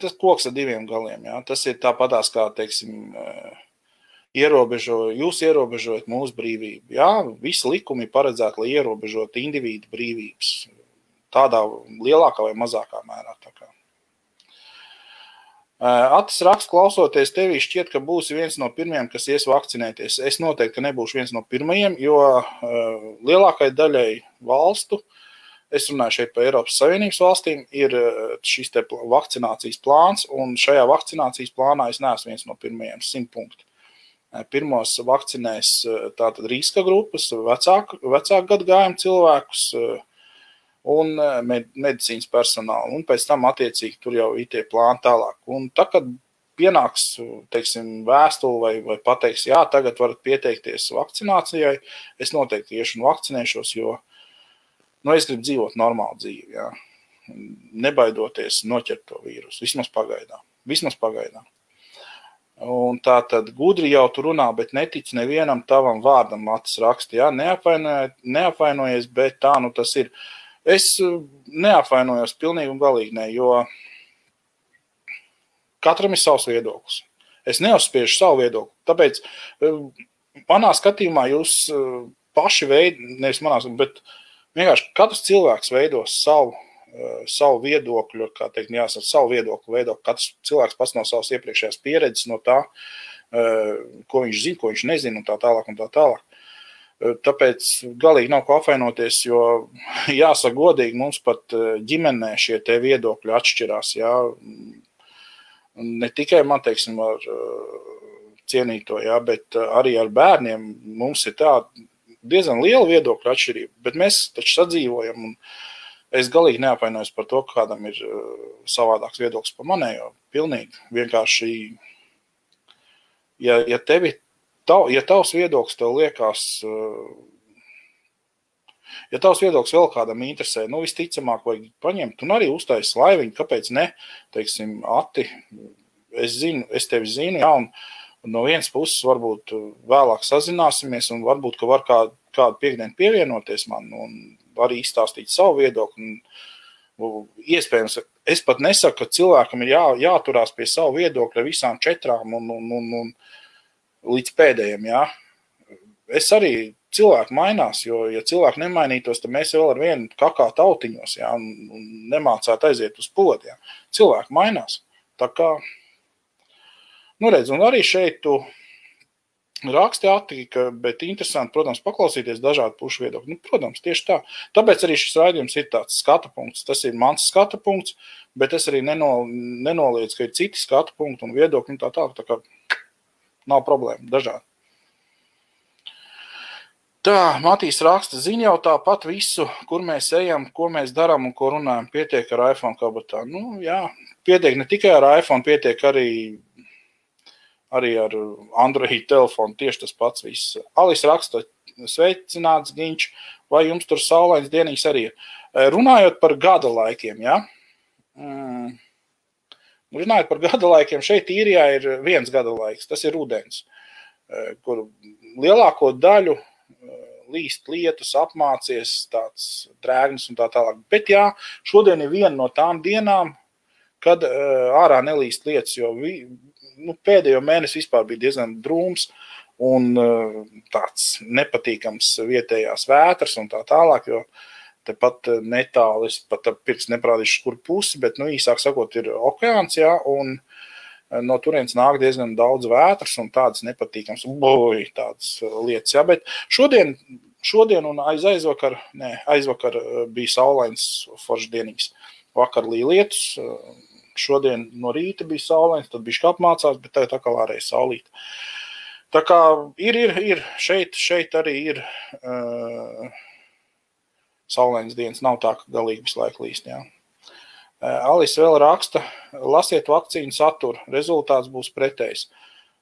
tas koks ar diviem galiem, jā. Tas ir tāpatās kā, teiksim, jūs ierobežojat mūsu brīvību. Jā, visi likumi paredzēti, lai ierobežot individu brīvības. Tādā lielākā vai mazākā mērā. Tā kā. Atis raksts, klausoties tevī, šķiet, ka būsi viens no pirmajiem, kas ies vakcinēties. Es noteikti nebūšu viens no pirmajiem, jo lielākai daļai valstu, es runāju šeit par Eiropas Savienības valstīm, ir šis te vakcinācijas plāns, un šajā vakcinācijas plānā es neesmu viens no pirmajiem 100 punktu. Pirmos vakcinēs tātad riska grupas, vecāku gadagājumu cilvēkus, un medicīnas personālu, un pēc tam attiecīgi tur jau ir tie plāni tālāk. Un tā, kad pienāks, teiksim, vēstuli vai pateiks, jā, tagad varat pieteikties vakcinācijai, es noteikti iešu un vakcinēšos, jo, es gribu dzīvot normālu dzīvi, jā. Nebaidoties noķert to vīrusu, vismaz pagaidām. Un tā tad gudri jau tu runā, bet netic nevienam tavam vārdam, Matis raksta, jā, neapvainojies, bet tā, tas ir. Es neapvainojos pilnīgi un galīgi ne, jo katram ir savs viedoklis. Es neuzspiežu savu viedokli. Tāpēc manā skatījumā jūs paši nevis manā, bet vienkārši katrs cilvēks veidos savu viedokļu, kā teikt, jāsaka, savu viedokli veido. Katrs cilvēks pats no savas iepriekšējās pieredzes, no tā, ko viņš zina, ko viņš nezina, un tā tālāk, un tā tālāk. Tāpēc galīgi nav ko apvainoties, jo jāsaka godīgi, mums pat ģimenē šie te viedokļi atšķirās, jā. Ne tikai man, teiksim, ar cienīto, jā, bet arī ar bērniem mums ir tā diezgan liela viedokļa atšķirība, bet mēs taču sadzīvojam, un es galīgi neapvainojos par to, ka kādam ir savādāks viedoklis par manējo. Pilnīgi vienkārši, ja tavs viedoklis tev liekas, ja tavs viedoklis vēl kādam interesē, visticamāk vajag paņemt un arī uztaisīt laiviņu, kāpēc ne, teiksim, Ati, es tevi zinu, jā, un no vienas puses varbūt vēlāk sazināsimies un varbūt, ka var kādu piekdienu pievienoties man un arī izstāstīt savu viedokli. Iespējams, es pat nesaku, ka cilvēkam ir jāturās pie savu viedokļa visām 4 un līdz pēdējiem, jā. Es arī cilvēki mainās, jo, ja cilvēki nemainītos, tad mēs vēl ar vienu kakā tautiņos, jā, un nemācētu aiziet uz podu, jā. Cilvēki mainās. Tā kā, redz, un arī šeit tu raksti attika, bet interesanti, protams, paklausīties dažādu pušu viedokļu. Protams, tieši tā. Tāpēc arī šis raidījums ir tāds skata punkts. Tas ir mans skata punkts, bet es arī nenoliedzu, ka ir citi skata punkti un viedokļi un tā kā nav problēma, dažādi. Tā, Matīs raksta, zina jau tāpat visu, kur mēs ejam, ko mēs darām un ko runājam. Pietiek ar iPhone kabatā. Jā, pietiek ne tikai ar iPhone, pietiek arī ar Android telefonu, tieši tas pats viss. Alis raksta, sveicināts Giņš, vai jums tur saulains dienīgs arī ir. Runājot par gada laikiem, ja? Runājot par gada laikiem, šeit Īrijā ir viens gada laiks, tas ir rudens, kur lielāko daļu līst lietus, apmācies, tāds drēgnis un tā tālāk. Bet jā, šodien ir viena no tām dienām, kad ārā nelīst lietus, jo pēdējo mēnesi vispār bija diezgan drūms un tāds nepatīkams vietējās vētras un tā tālāk, jo tepat netāli, es pat pirks neprādīšu, kur pusi, bet, īsāk sakot, ir okeāns, jā, un no turienes nāk diezgan daudz vētras un tādas nepatīkams, tādas lietas, jā, bet šodien un aizvakar bija saulains foršs dienīgs. Vakar līja lietus, šodien no rīta bija saulains, tad bišķi apmācās, bet tagad atkal ārēja saulīta. Tā kā ir, šeit arī ir saulains dienas, nav tā, ka galīgi visu laiku līst, jā. Alis vēl raksta, lasiet vakcīnu saturu, rezultāts būs pretējs.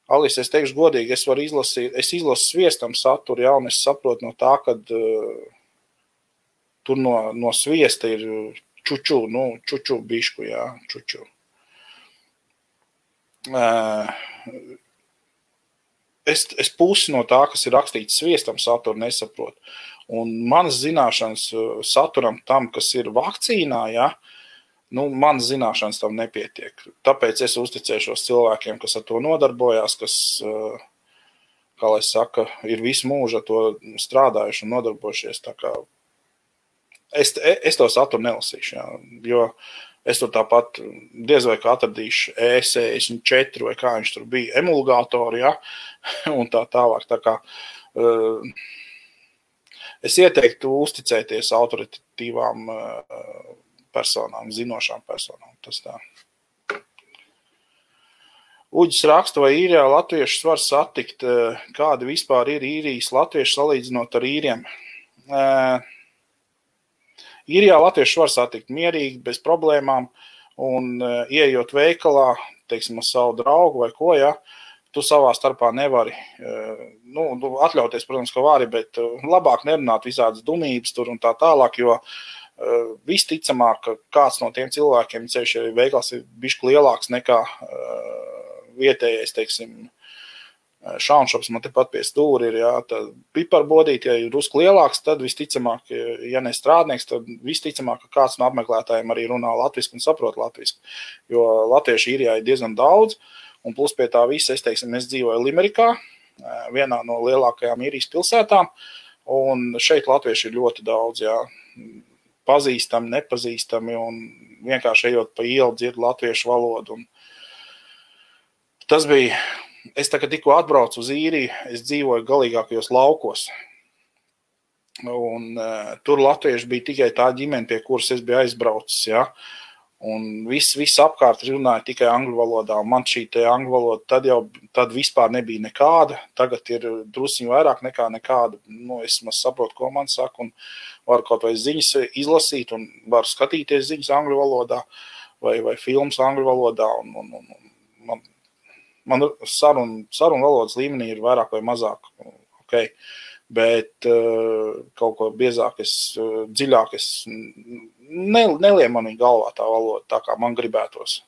Alis, es teikšu godīgi, es izlasu sviestam saturu, jā, un es saprotu no tā, kad tur no sviesta ir čuču bišku, jā, čuču. Es pusi no tā, kas ir rakstīts sviestam saturu, nesaprotu. Un manas zināšanas saturam tam, kas ir vakcīnā, jā, manas zināšanas tam nepietiek. Tāpēc es uzticēšos cilvēkiem, kas ar to nodarbojās, kas, kā lai saka, ir visu mūžu ar to strādājuši un nodarbojušies. Tā kā es to saturu nelasīšu, jā, jo es tur tāpat diez vai kā atradīšu E64 vai kā viņš tur bija, emulgātori, jā, un tā tālāk. Tā kā es ieteiktu uzticēties autoritatīvām personām, zinošām personām. Tas tā. Uģis raksta, vai Īrijā latviešus var satikt, kādi vispār ir Īrijas latvieši salīdzinot ar īriem. Īrijā latviešus var satikt mierīgi, bez problēmām, un ieejot veikalā, teiksim, ar savu draugu vai ko, ja, tu savā starpā nevari, atļauties, protams, ka vari, bet labāk nerunāt visādas dumības tur un tā tālāk, jo visticamāk, ka kāds no tiem cilvēkiem, ceļš, ja veikals ir bišķi lielāks nekā vietējais, teiksim, šaunšops man tepat pie stūri ir, jā, tad piparbodīt, ja ir drusku lielāks, tad visticamāk, ja ne strādnieks, tad visticamāk, ka kāds no apmeklētājiem arī runā latviski un saprot latviski, jo latvieši Īrijā ir diezgan daudz, un plus pie tā visa, es dzīvoju Limerikā, vienā no lielākajām Īrijas pilsētām, un šeit latvieši ir ļoti daudz, jā, pazīstami, nepazīstami, un vienkārši ejot pa ielu dzird latviešu valodu. Un tas bija, es tikko atbraucu uz Īriju, es dzīvoju galīgākajos laukos, un tur latvieši bija tikai tā ģimene, pie kuras es biju aizbraucis, jā. Un viss apkārt runāja tikai angļu valodā, un man šī te angļu valoda tad vispār nebija nekāda, tagad ir drusiņi vairāk nekā nekāda, es saprotu, ko man saka, un varu kaut vai ziņas izlasīt, un varu skatīties ziņas angļu valodā, vai filmas angļu valodā, un man sarunu valodas līmenī ir vairāk vai mazāk, ok, bet kaut ko biezāk, dziļāk, neliem manī galvā tā valoda, tā kā man gribētos.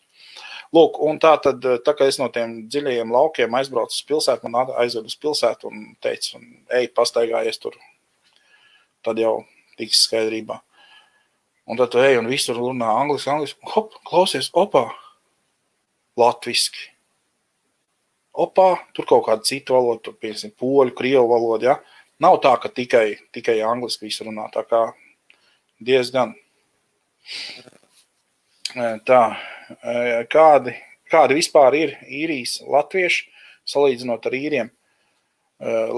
Lūk, un tā kā es no tiem dziļajiem laukiem aizbraucu uz pilsētu, man aizved uz pilsētu un teica, ej, pastaigājies tur, tad jau tiks skaidrībā. Un tad tu ej un visur runā angliski, hop, klausies, opā, latviski. Opā, tur kaut kāda cita valoda, tur piemēram poļu, krievu valoda, ja? Nav tā, ka tikai angliski visu runā, tā kā diezgan. Tā, kādi vispār ir īrijas latvieši, salīdzinot ar īriem?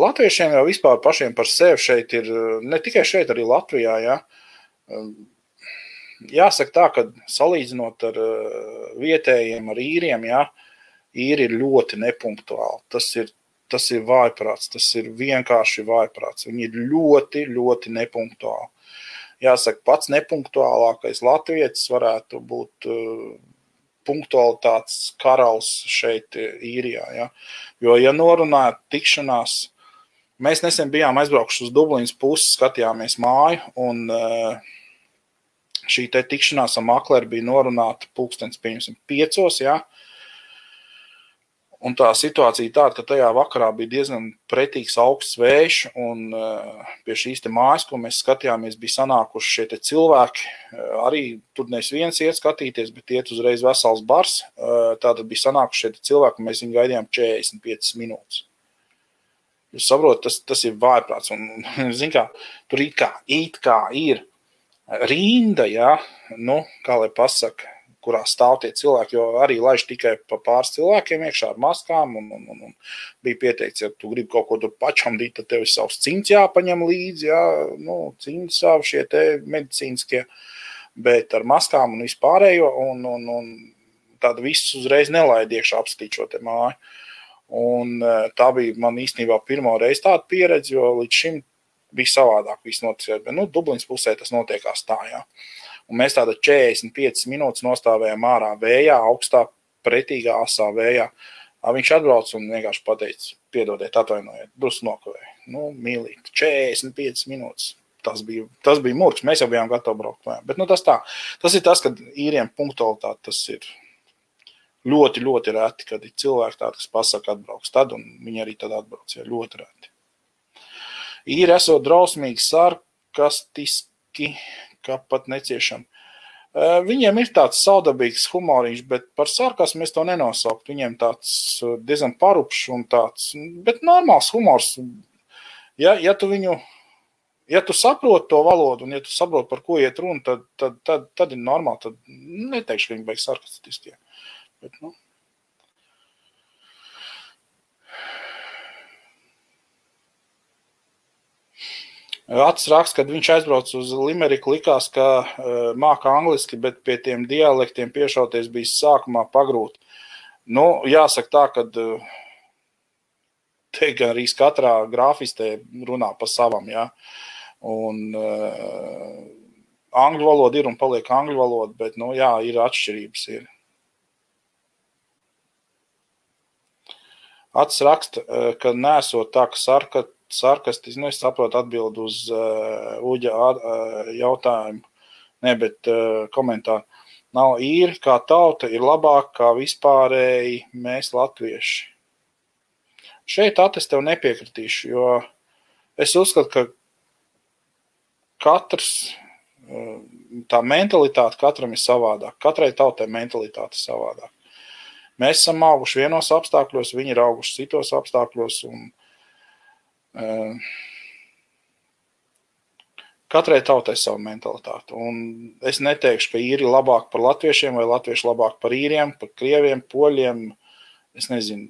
Latviešiem jau vispār pašiem par sevi šeit ir, ne tikai šeit, arī Latvijā, ja? Jāsaka tā, ka salīdzinot ar vietējiem, ar īriem, ja? Īri ir ļoti nepunktuāli. Tas ir vājprāts, tas ir vienkārši vājprāts. Viņi ir ļoti, ļoti nepunktuāli. Jāsaka, pats nepunktuālākais latvietis varētu būt punktualitātes karalis šeit Īrijā. Ja? Jo, ja norunājat tikšanās, mēs nesen bijām aizbraukuši uz Dublinas pusi, skatījāmies māju, un šī te tikšanās ar makleri bija norunāta pulkstens 5, ja? Un tā situācija tāda, ka tajā vakarā bija diezgan pretīgs augsts vējš, un pie šīs te mājas, ko mēs skatījāmies, bija sanākuši šie te cilvēki. Arī tur nevis viens iet skatīties, bet iet uzreiz vesels bars. Tātad bija sanākuši šie te cilvēki, un mēs viņu gaidījām 45 minūtes. Jūs saprotat, tas ir vājprāts, un zin kā, tur it kā ir rinda, ja, kā lai pasaka, kurā stāv tie cilvēki, jo arī laiž tikai pa pāris cilvēkiem iekšā ar maskām, un bija pieteikts, ja tu gribi kaut ko tur pačamdīt, tad tev ir savs cimds jāpaņem līdzi, jā, cimdi savu šie te medicīniskie, bet ar maskām un vispārējo, un tāda viss uzreiz nelaid iekšā apstīt šo te māju. Un tā bija man īstenībā pirmo reizi tāda pieredze, jo līdz šim bija savādāk viss notiek, bet, Dublinas pusē tas notiekās tā, jā. Un mēs tāda 45 minūtes nostāvējām ārā vējā, augstā, pretīgā, asā vējā. Viņš atbrauc un vienkārši pateica, piedodiet, atvainojiet, drusku nokavēju. Mīlīt, 45 minūtes. Tas bija murgs, mēs jau bijām gatavi braukt. Bet tas tā. Tas ir tas, kad īriem punktualitāte, tas ir ļoti, ļoti reti, kad ir cilvēki tādi, kas pasaka atbrauks tad, un viņi arī tad atbrauc, ja ļoti reti. Īri esot drausmīgi, sarkastiski, kā pat neciešam. Viņiem ir tāds saudabīgs humoriņš, bet par sarkasmu es to nenosaukt. Viņiem tāds diezgan parupšs un tāds, bet normāls humors. Ja tu saproti to valodu un ja tu saproti, par ko iet runa, tad ir normāli. Tad neteikšu, ka viņi beigs sarkastiskie. Bet, Acis raksta, kad viņš aizbrauc uz Limeriku, likās, ka māka angliski, bet pie tiem dialektiem piešauties bija sākumā pagrūti. Jāsaka tā, ka te gan arī katrā grāfistē runā pa savam, jā. Un angļu valoda ir un paliek angļu valoda, bet, jā, ir atšķirības. Ir. Acis raksta, ka nesot tā, ka sarkastiski, es saprotu atbildu uz Uģa jautājumu, bet komentāru. Nav īri, kā tauta ir labāk kā vispārēji mēs latvieši. Šeit es tev nepiekritīšu, jo es uzskatu, ka katrs, tā mentalitāte katram ir savādāk. Katrai tautai mentalitāte ir savādāk. mēs esam auguši vienos apstākļos, viņi ir auguši citos apstākļos, un katrai tautai savu mentalitāti. Un es neteikšu, ka īri labāk par latviešiem vai latvieši labāk par īriem, par krieviem, poļiem, es nezinu,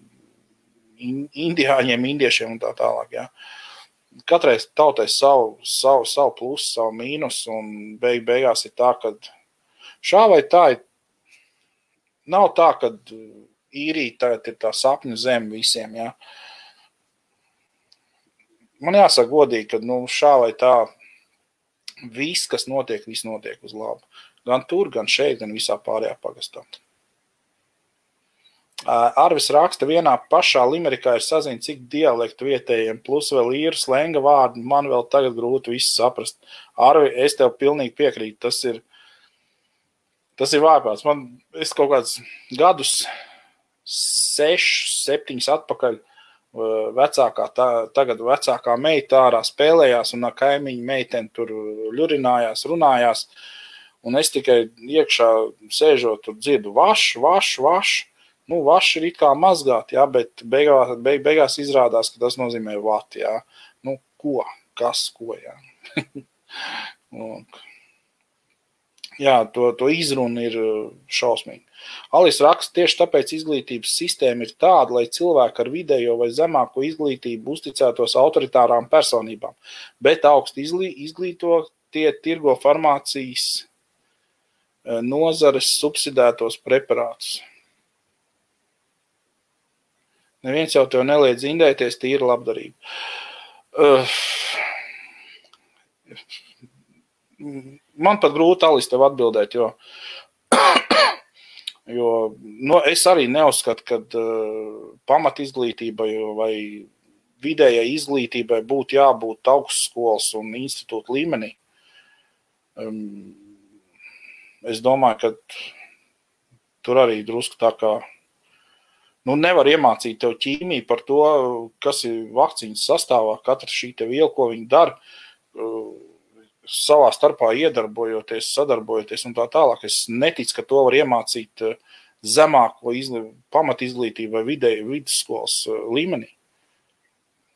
indiāņiem, indiešiem un tā tālāk. Ja. Katrai tautai savu plusu, savu mīnus, un beigās ir tā, ka šā vai tā nav tā, ka īrija tagad ir tā sapņu zeme visiem. Ja. Man jāsaka godīgi, ka šā vai tā viss, kas notiek, viss notiek uz labu. Gan tur, gan šeit, gan visā pārējā pagastā. Arvis raksta, vienā pašā Limerikā ir saziņa, cik dialektu vietējiem, plus vēl īru slenga vārdi, man vēl tagad grūti visu saprast. Arvi, es tev pilnīgi piekrītu, tas ir vājprāts. Es kaut kādus gadus 6, 7 atpakaļ tagad vecākā meita ārā spēlējās un ar kaimiņu meiteni tur ļurinājās, runājās. Un es tikai iekšā sēžot tur dzirdu vaš. Vaš ir it kā mazgāt, jā, bet beigās izrādās, ka tas nozīmē vat, jā. Ko? Kas? Ko, jā. Jā, to izruna ir šausmīgi. Alis raksta, tieši tāpēc izglītības sistēma ir tāda, lai cilvēki ar vidējo vai zemāko izglītību uzticētos autoritārām personībām, bet augsti izglītotie tirgo farmācijas nozares subsidētos preparātus. Neviens jau tev neliedz indēties, tīra labdarība. Man pat grūti, Alis, tev atbildēt, jo es arī neuzskatu, ka pamat izglītībai vai vidējai izglītībai būtu jābūt augstskolas un institūta līmenī. Es domāju, ka tur arī drusku tā kā nevar iemācīt tev ķīmiju par to, kas ir vakcīnas sastāvā, katra šī te viela, ko viņi dara, savā starpā iedarbojoties, sadarbojoties un tā tālāk. Es neticu, ka to var iemācīt zemāko pamat izglītību vai vidusskolas līmenī.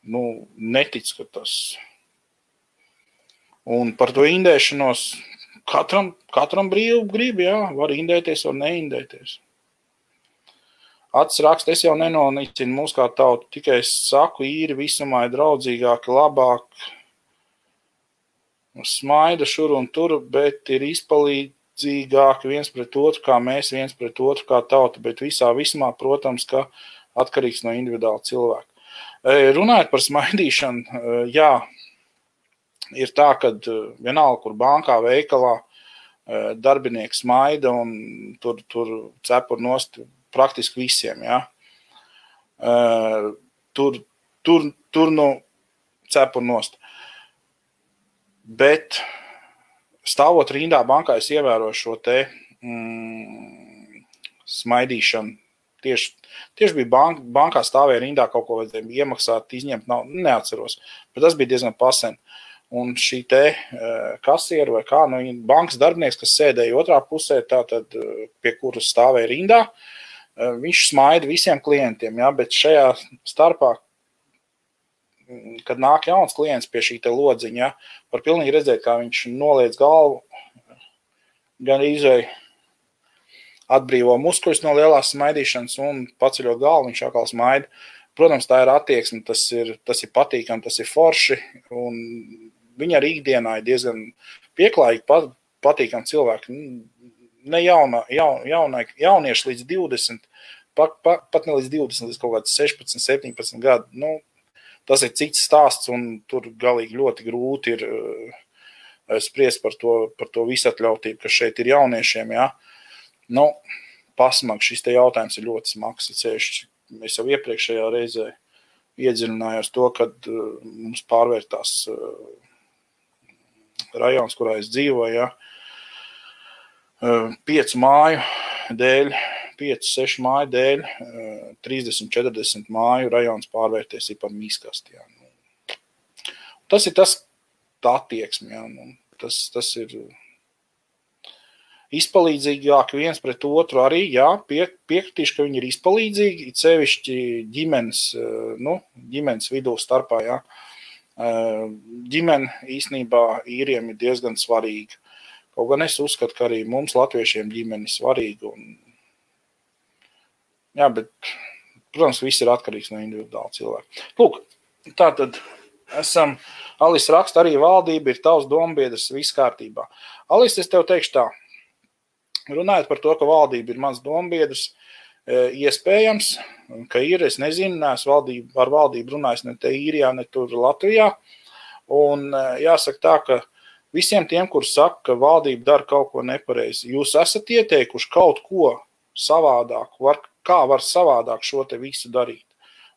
Neticu, ka tas. Un par to indēšanos katram brīvu grib, jā, var indēties, var neindēties. Acis raksta, es jau nenonicinu mūs kā tautu, tikai es saku, īri visumā ir draudzīgāki, labāk, smaida šur un tur, bet ir izpalīdzīgāki viens pret otru, kā mēs viens pret otru kā tauta, bet visā vismā, protams, ka atkarīgs no individuāla cilvēka. Runājot par smaidīšanu, jā, ir tā, ka vienalga, kur bankā, veikalā darbinieks smaida un tur cepur nost praktiski visiem, jā. Tur cepur nost. Bet stāvot rindā bankā, es ievēroju šo te smaidīšanu. Tieši bija bankā stāvēja rindā, kaut ko vajadzēja iemaksāt, izņemt, neatceros. Bet tas bija diezgan pasen. Un šī te kasiera vai kā, bankas darbinieks, kas sēdēja otrā pusē, tātad pie kuras stāvēja rindā, viņš smaida visiem klientiem, ja, bet šajā starpā, kad nāk jauns klients pie šī te lodziņa, ja, var pilnīgi redzēt, kā viņš noliec galvu, gan izvēj atbrīvo muskuļus no lielās smaidīšanas un paceļot galvu, viņš atkal smaida. Protams, tā ir attieksme, tas ir patīkami, tas ir forši, un viņi arī ikdienā ir diezgan pieklājīgi, patīkami cilvēki. Ne jaunieši līdz 20, pat ne līdz 20, līdz kaut kāds 16, 17 gadu. Tas ir cits stāsts, un tur galīgi ļoti grūti ir spriest par to visatļautību, kas šeit ir jauniešiem. Ja? Pasmag, šis te jautājums ir ļoti smags. Es jau iepriekšējā reizē iedziļinājos to, kad mums pārvērtās rajons, kurā es dzīvoju, ja? 5 māju dēļ, 5-6 māju dēļ, 30-40 māju rajons pārvērties ir par mīskasti. Ja? Tas ir tā attieksme. Ja? Tas ir izpalīdzīgāki viens pret otru arī, jā, piekritīšu, ka viņi ir izpalīdzīgi, it sevišķi ģimenes vidū starpā, jā. Ģimene īstenībā īriem ir diezgan svarīga. Kaut gan es uzskatu, ka arī mums latviešiem ģimene ir svarīga. Jā, bet, protams, viss ir atkarīgs no individuāla cilvēka. Lūk, tātad esam, Alis raksta, arī valdība ir tavs dombiedrs, viss kārtībā. Alis, es tev teikšu tā, runājot par to, ka valdība ir mans dombiedrs, iespējams, ka ir, es nezinu, neesmu ar valdību runājis ne te Īrijā, ne tur Latvijā, un jāsaka tā, ka visiem tiem, kur saka, ka valdība dara kaut ko nepareizi, jūs esat ieteikuši kaut ko savādāk, kā var savādāk šo te visu darīt,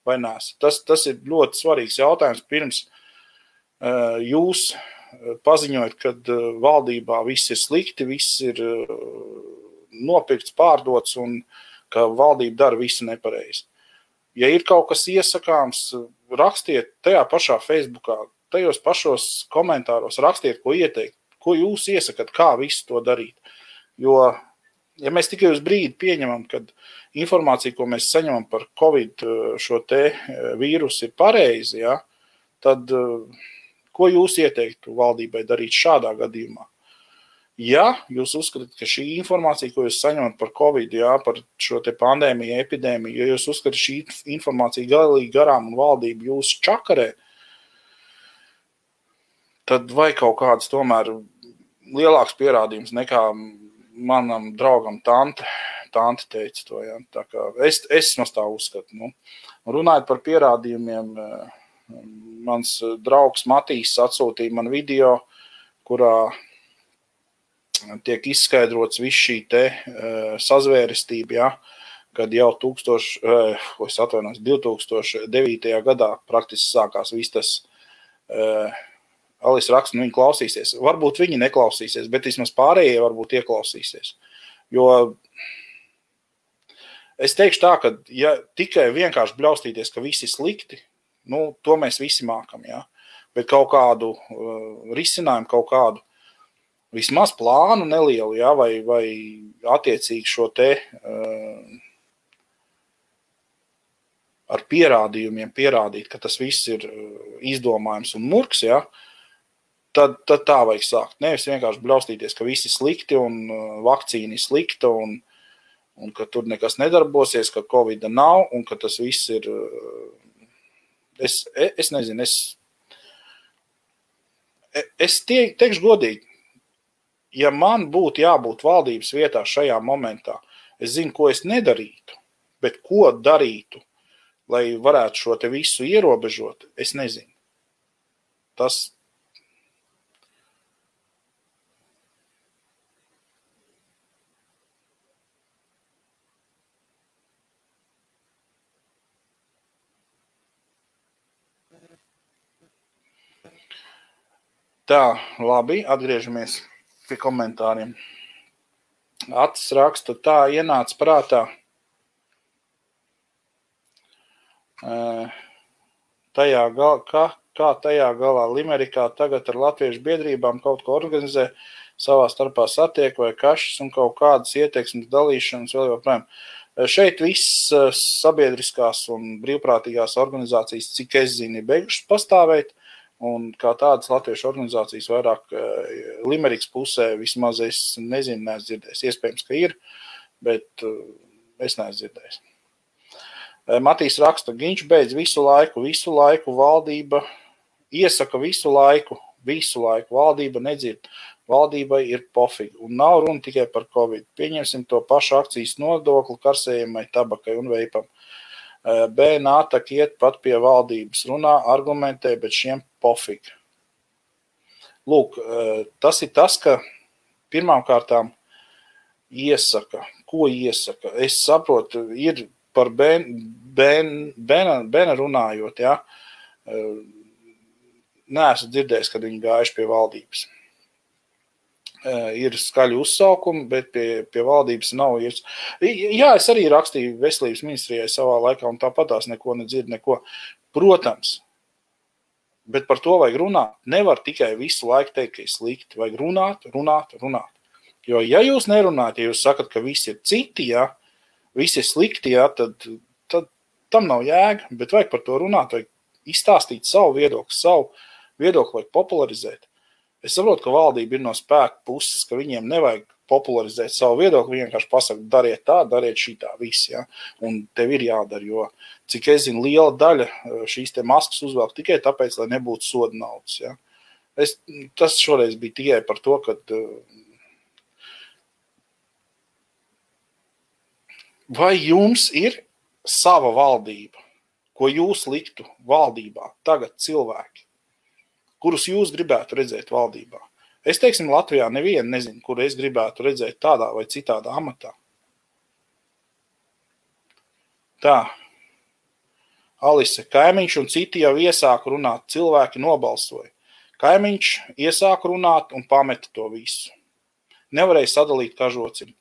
vai nēs? Tas ir ļoti svarīgs jautājums, pirms jūs paziņojat, kad valdībā viss ir slikti, viss ir nopirkts, pārdots un ka valdība dara visu nepareizi. Ja ir kaut kas iesakāms, rakstiet tajā pašā Facebookā, tajos pašos komentāros, rakstiet, ko ieteikt, ko jūs iesakat, kā visu to darīt. Jo, ja mēs tikai uz brīdi pieņemam, kad informācija, ko mēs saņemam par Covid šo te vīrusu ir pareizi, ja, tad ko jūs ieteiktu valdībai darīt šādā gadījumā? Ja jūs uzskatāt, ka šī informācija, ko jūs saņemat par Covid, jā, par šo te pandēmiju, epidēmiju, ja jūs uzskatāt šī informācija galīgi garām un valdība jūs čakarē, tad vai kaut kāds tomēr lielāks pierādījums nekā manam draugam tante teica to, jā. Tā kā es no tā uzskatu. Runājot par pierādījumiem, mans draugs Matīs atsūtīja man video, kurā tiek izskaidrots viss šī te sazvērestība, ja, kad jau 2009. gadā praktiski sākās viss tas, Alis raksta, viņi klausīsies. Varbūt viņi neklausīsies, bet vismaz pārējie varbūt ieklausīsies. Jo es teikšu tā, ka ja tikai vienkārši bļaustīties, ka visi slikti, to mēs visi mākam, ja, bet kaut kādu risinājumu, kaut kādu vismaz plānu nelielu, ja, vai attiecīgi šo te ar pierādījumiem pierādīt, ka tas viss ir izdomājums un murks, ja, tad tā vajag sākt. Nevis vienkārši bļaustīties, ka visi slikti un vakcīna ir slikta un ka tur nekas nedarbosies, ka Covida nav un ka tas viss ir, es nezinu, es teikšu godīgi, ja man būtu jābūt valdības vietā šajā momentā, es zinu, ko es nedarītu, bet ko darītu, lai varētu šo te visu ierobežot, es nezinu. Tas tā, labi, atgriežamies pie komentāriem. Atis raksta, tā ienāca prātā. Kā tajā galā Limerikā tagad ar latviešu biedrībām kaut ko organizē, savā starpā satiek vai kašas un kaut kādas ieteiksmes dalīšanas vēl joprojām. Šeit viss sabiedriskās un brīvprātīgās organizācijas, cik es zinu, ir beigušas pastāvēt. Un kā tādas latviešu organizācijas vairāk Limerikas pusē vismaz es nezinu, neesmu dzirdējis. Iespējams, ka ir, bet es neesmu dzirdējis. Matīs raksta, Giņš beidz visu laiku valdība iesaka visu laiku, valdība nedzird. Valdībai ir pofīgi un nav runa tikai par Covid. Pieņemsim to pašu akcijas nodokli karsējumai, tabakai un veipam. BNATAK iet pat pie valdības, runā, argumentē, bet šiem pofīgi. Lūk, tas ir tas, ka pirmām kārtām iesaka. Ko iesaka? Es saprotu, ir par Bena runājot, ja? Neesmu dzirdējis, kad viņi gājuši pie valdības. Ir skaļi uzsaukumi, bet pie valdības nav. Jā, es arī rakstīju veselības ministrijai savā laikā, un tāpatās neko nedzird, neko. Protams, bet par to vajag runāt. Nevar tikai visu laiku teikt, ka ir slikti. Vajag runāt. Jo, ja jūs nerunājat, ja jūs sakat, ka visi ir citi, ja, visi ir slikti, ja, tad tam nav jēga, bet vajag par to runāt, vajag izstāstīt savu viedokli vajag popularizēt. Es saprotu, ka valdība ir no spēka puses, ka viņiem nevajag popularizēt savu viedokli, viņi vienkārši pasaka, dariet tā, dariet šitā, viss, ja, un tev ir jādara, jo, cik es zinu, liela daļa šīs te maskas uzvelk tikai tāpēc, lai nebūtu soda naudas, ja. Tas šoreiz bija tikai par to, ka vai jums ir sava valdība, ko jūs liktu valdībā tagad cilvēki, kurus jūs gribētu redzēt valdībā? Es, teiksim, Latvijā nevienu nezinu, kur es gribētu redzēt tādā vai citādā amatā. Tā. Alise, Kaimiņš un citi jau iesāka runāt, cilvēki nobalsoja. Kaimiņš iesāka runāt un pameta to visu. Nevarēja sadalīt kažocim.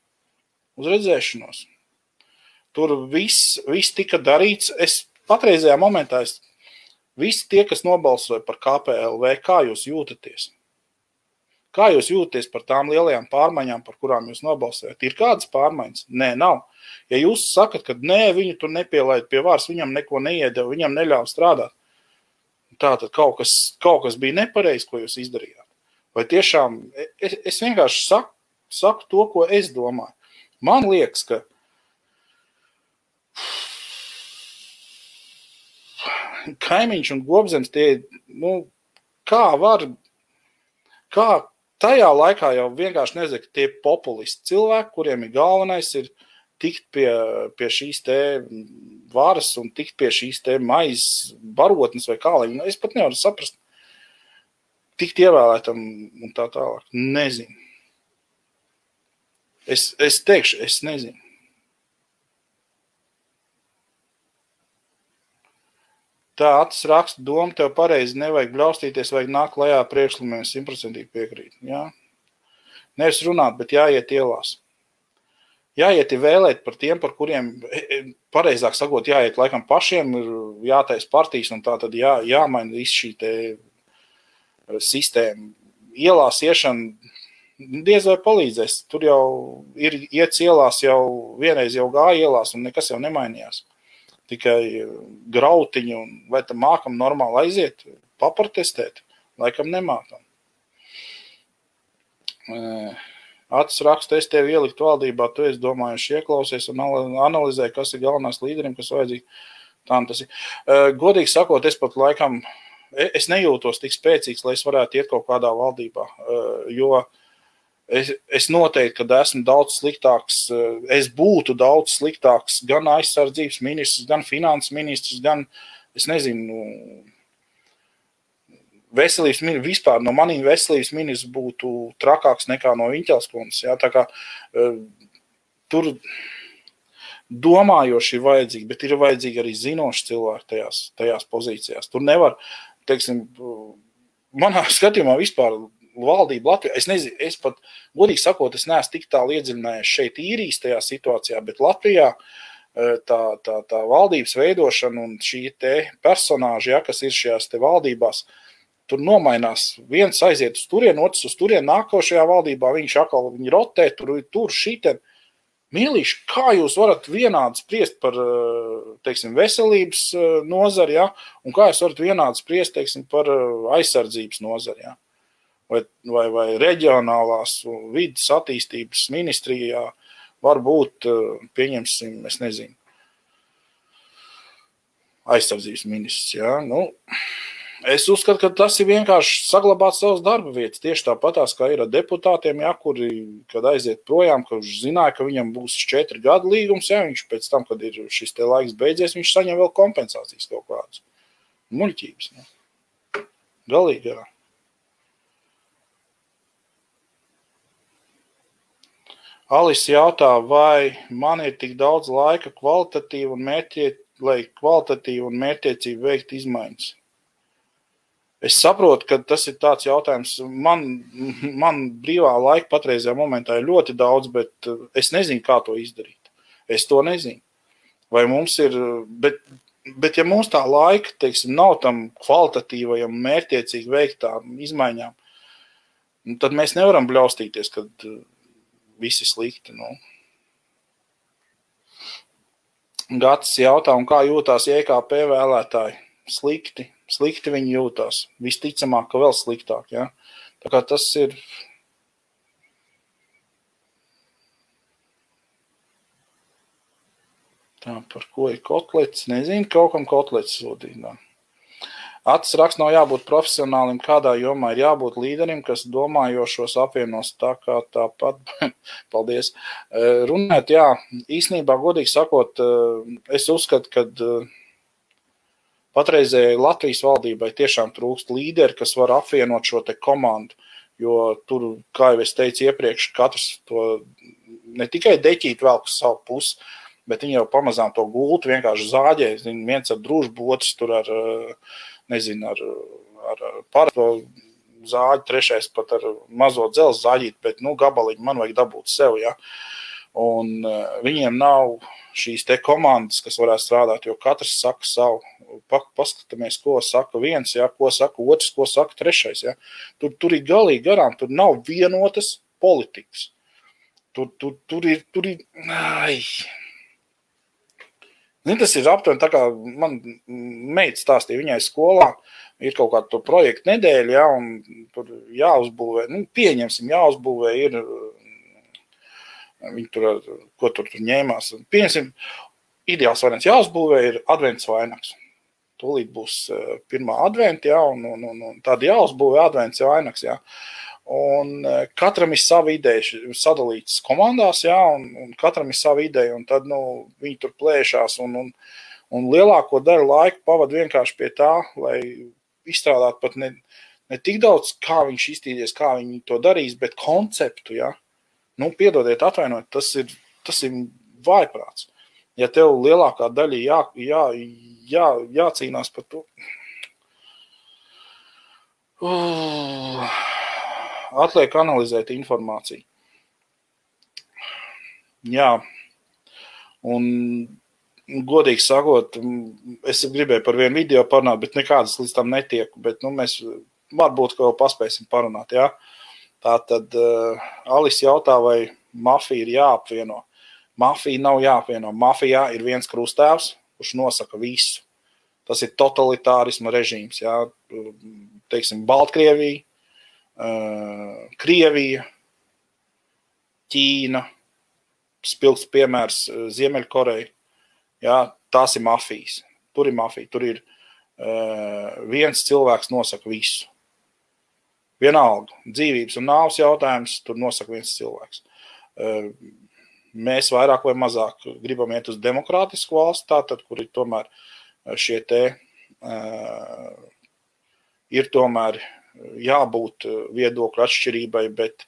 Uz redzēšanos. Tur viss tika darīts. Es patreizajā momentā, visi tie, kas nobalsoja par KPLV, kā jūs jūtaties? Kā jūs jūtaties par tām lielajām pārmaiņām, par kurām jūs nobalsojat? Ir kādas pārmaiņas? Nē, nav. Ja jūs sakat, ka nē, viņu tur nepielaid pie vārs, viņam neko neiedeva, viņam neļauj strādāt, tātad kaut kas bija nepareizi, ko jūs izdarījāt. Vai tiešām, es vienkārši saku to, ko es domāju. Man liekas, ka Kaimiņš un Gobzems tie, kā tajā laikā jau vienkārši nezinu, ka tie populisti cilvēki, kuriem ir galvenais ir tikt pie šīs te varas un tikt pie šīs te maizes barotnes vai kā, es pat nevaru saprast, tikt ievēlētam un tā tālāk. Nezinu. Es teikšu, es nezinu. Tā acis raksta doma, tev pareizi nevajag bļaustīties, vajag nākt lejā priekšlikumiem, 100% piekrīt. Jā. Nevis runāt, bet jāiet ielās. Jāiet vēlēt par tiem, par kuriem, pareizāk sakot, jāiet laikam pašiem, ir jātais partijas un tā tad jāmaina visu šī te sistēma. Ielās iešana diez vai palīdzēs. Tur jau ir iets ielās, jau vienreiz jau gāja ielās un nekas jau nemainījās. Tikai grautiņi, un vai tam mākam normāli aiziet, paprotestēt, laikam nemākam. Acis raksta, es tevi ielikt valdībā, tu esi domājuši ieklausies un analizē, kas ir galvenās līderim, kas vajadzīgi. Tā tas ir. Godīgi sakot, es pat laikam, es nejūtos tik spēcīgs, lai es varētu iet kaut kādā valdībā, jo es noteikti, kad esmu daudz sliktāks, es būtu daudz sliktāks gan aizsardzības ministrs, gan finanses ministrs, gan, es nezinu, veselības ministrs, vispār no maniem veselības ministrs būtu trakāks nekā no Viņķelskundas. Ja? Tā kā tur domājoši ir vajadzīgi, bet ir vajadzīgi arī zinoši cilvēki tajās pozīcijās. Tur nevar, teiksim, manā skatījumā vispār valdība Latvijā, es nezinu, es pat, godīgi sakot, es neesmu tik tālu iedziļinājies šeit īrijas tajā situācijā, bet Latvijā tā valdības veidošana un šī te personāži, ja, kas ir šajās te valdībās, tur nomainās, viens aiziet uz turien, otrs uz turien, nākošajā valdībā viņš atkal viņi rotē, tur šiten. Mīlīši, kā jūs varat vienādi spriest par, teiksim, veselības nozari, ja, un kā jūs varat vienādi spriest, teiksim, par aizsardzības nozari, ja? Vai reģionālās vidas attīstības ministrijā var būt, pieņemsim, es nezinu, aizsardzības ministrs, jā. Es uzskatu, ka tas ir vienkārši saglabāt savas darba vietas, tieši tāpatās, kā ir ar deputātiem, jā, kuri, kad aiziet projām, ka viņš zināja, ka viņam būs 4 gadu līgums, jā, viņš pēc tam, kad ir šis te laiks beidzies, viņš saņem vēl kompensācijas kaut kādas. Muļķības, jā. Galīgi, jā. Alise jautā, vai man ir tik daudz laika lai kvalitatīvi un mērķtiecīgi veikt izmaiņas. Es saprotu, ka tas ir tāds jautājums. Man brīvā laika patreizajā momentā ir ļoti daudz, bet es nezinu, kā to izdarīt. Es to nezinu. Vai mums ir, bet ja mums tā laika, teiksim, nav tam kvalitatīvajam mērķtiecīgi veiktām izmaiņām, tad mēs nevaram bļaustīties, kad visi slikti. Nu. Gatis jautā, un kā jūtās JKP vēlētāji? Slikti viņi jūtās. Visticamāk, ka vēl sliktāk. Ja? Tā kā tas ir... Tā, par ko ir kotlets? Nezinu, kaut kam kotlets sūtīt. Acis raksts nav jābūt profesionālim, kādā jomā ir jābūt līderim, kas domājošos apvienos tā kā tāpat. Paldies. Runāt, jā, īstenībā, godīgi sakot, es uzskatu, ka patreizējai Latvijas valdībai tiešām trūkst līderi, kas var apvienot šo te komandu, jo tur, kā jau es teicu iepriekš, katrs to ne tikai deķīt velk uz savu pusi, bet viņi jau pamazām to gultu vienkārši zāģē, viens ar družbu, otrs tur ar, nezinu, ar parasto zāģi, trešais pat ar mazo dzelzi zāģīt, bet, gabaliņu man vajag dabūt sev, ja. Un viņiem nav šīs te komandas, kas varētu strādāt, jo katrs saka savu. Paskatāmies, ko saka viens, ja, ko saka otrs, ko saka trešais, ja. Tur ir galīgi garām, tur nav vienotas politikas. Tur ir, ai... Tas ir aptuveni tā kā man meita stāstīja, viņai skolā ir kaut kāda to projektu nedēļa, ja, un tur jāuzbūvē, pieņemsim, jāuzbūvē ir, viņi tur, ko tur ņēmās, pieņemsim, ideāls variants jāuzbūvē ir advents vainags. Tūlīt būs pirmā adventa, ja, un tad jāuzbūvē advents vainags, ja. Un katram ir sava ideja sadalītas komandās, jā, un katram ir sava ideja, un tad, viņi tur plēšās, un lielāko daļu laiku pavad vienkārši pie tā, lai izstrādātu pat ne tik daudz, kā viņš iztīdies, kā viņi to darīs, bet konceptu, jā. Piedodiet, atvainojiet, tas ir vājprāts. Ja tev lielākā daļa jācīnās par to... Atliek analizēt informāciju. Jā, un godīgi sakot, es gribēju par vienu video parunāt, bet nekādas līdz tam netieku, bet mēs varbūt kaut ko paspēsim parunāt, jā. Tātad Alis jautā, vai mafija ir jāapvieno. Mafija nav jāapvieno. Mafijā ir viens krustēvs, kurš nosaka visu. Tas ir totalitārisma režīms, jā. Teiksim, Baltkrievija, Krievija, Ķīna, spilgts piemērs Ziemeļkoreja, jā, tās ir mafijas. Tur ir mafija, tur ir viens cilvēks nosaka visu. Vienalga, dzīvības un nāves jautājums, tur nosaka viens cilvēks. Mēs vairāk vai mazāk gribam iet uz demokrātisku valsti, tātad, kur ir tomēr šie te ir tomēr jābūt viedokļu atšķirībai, bet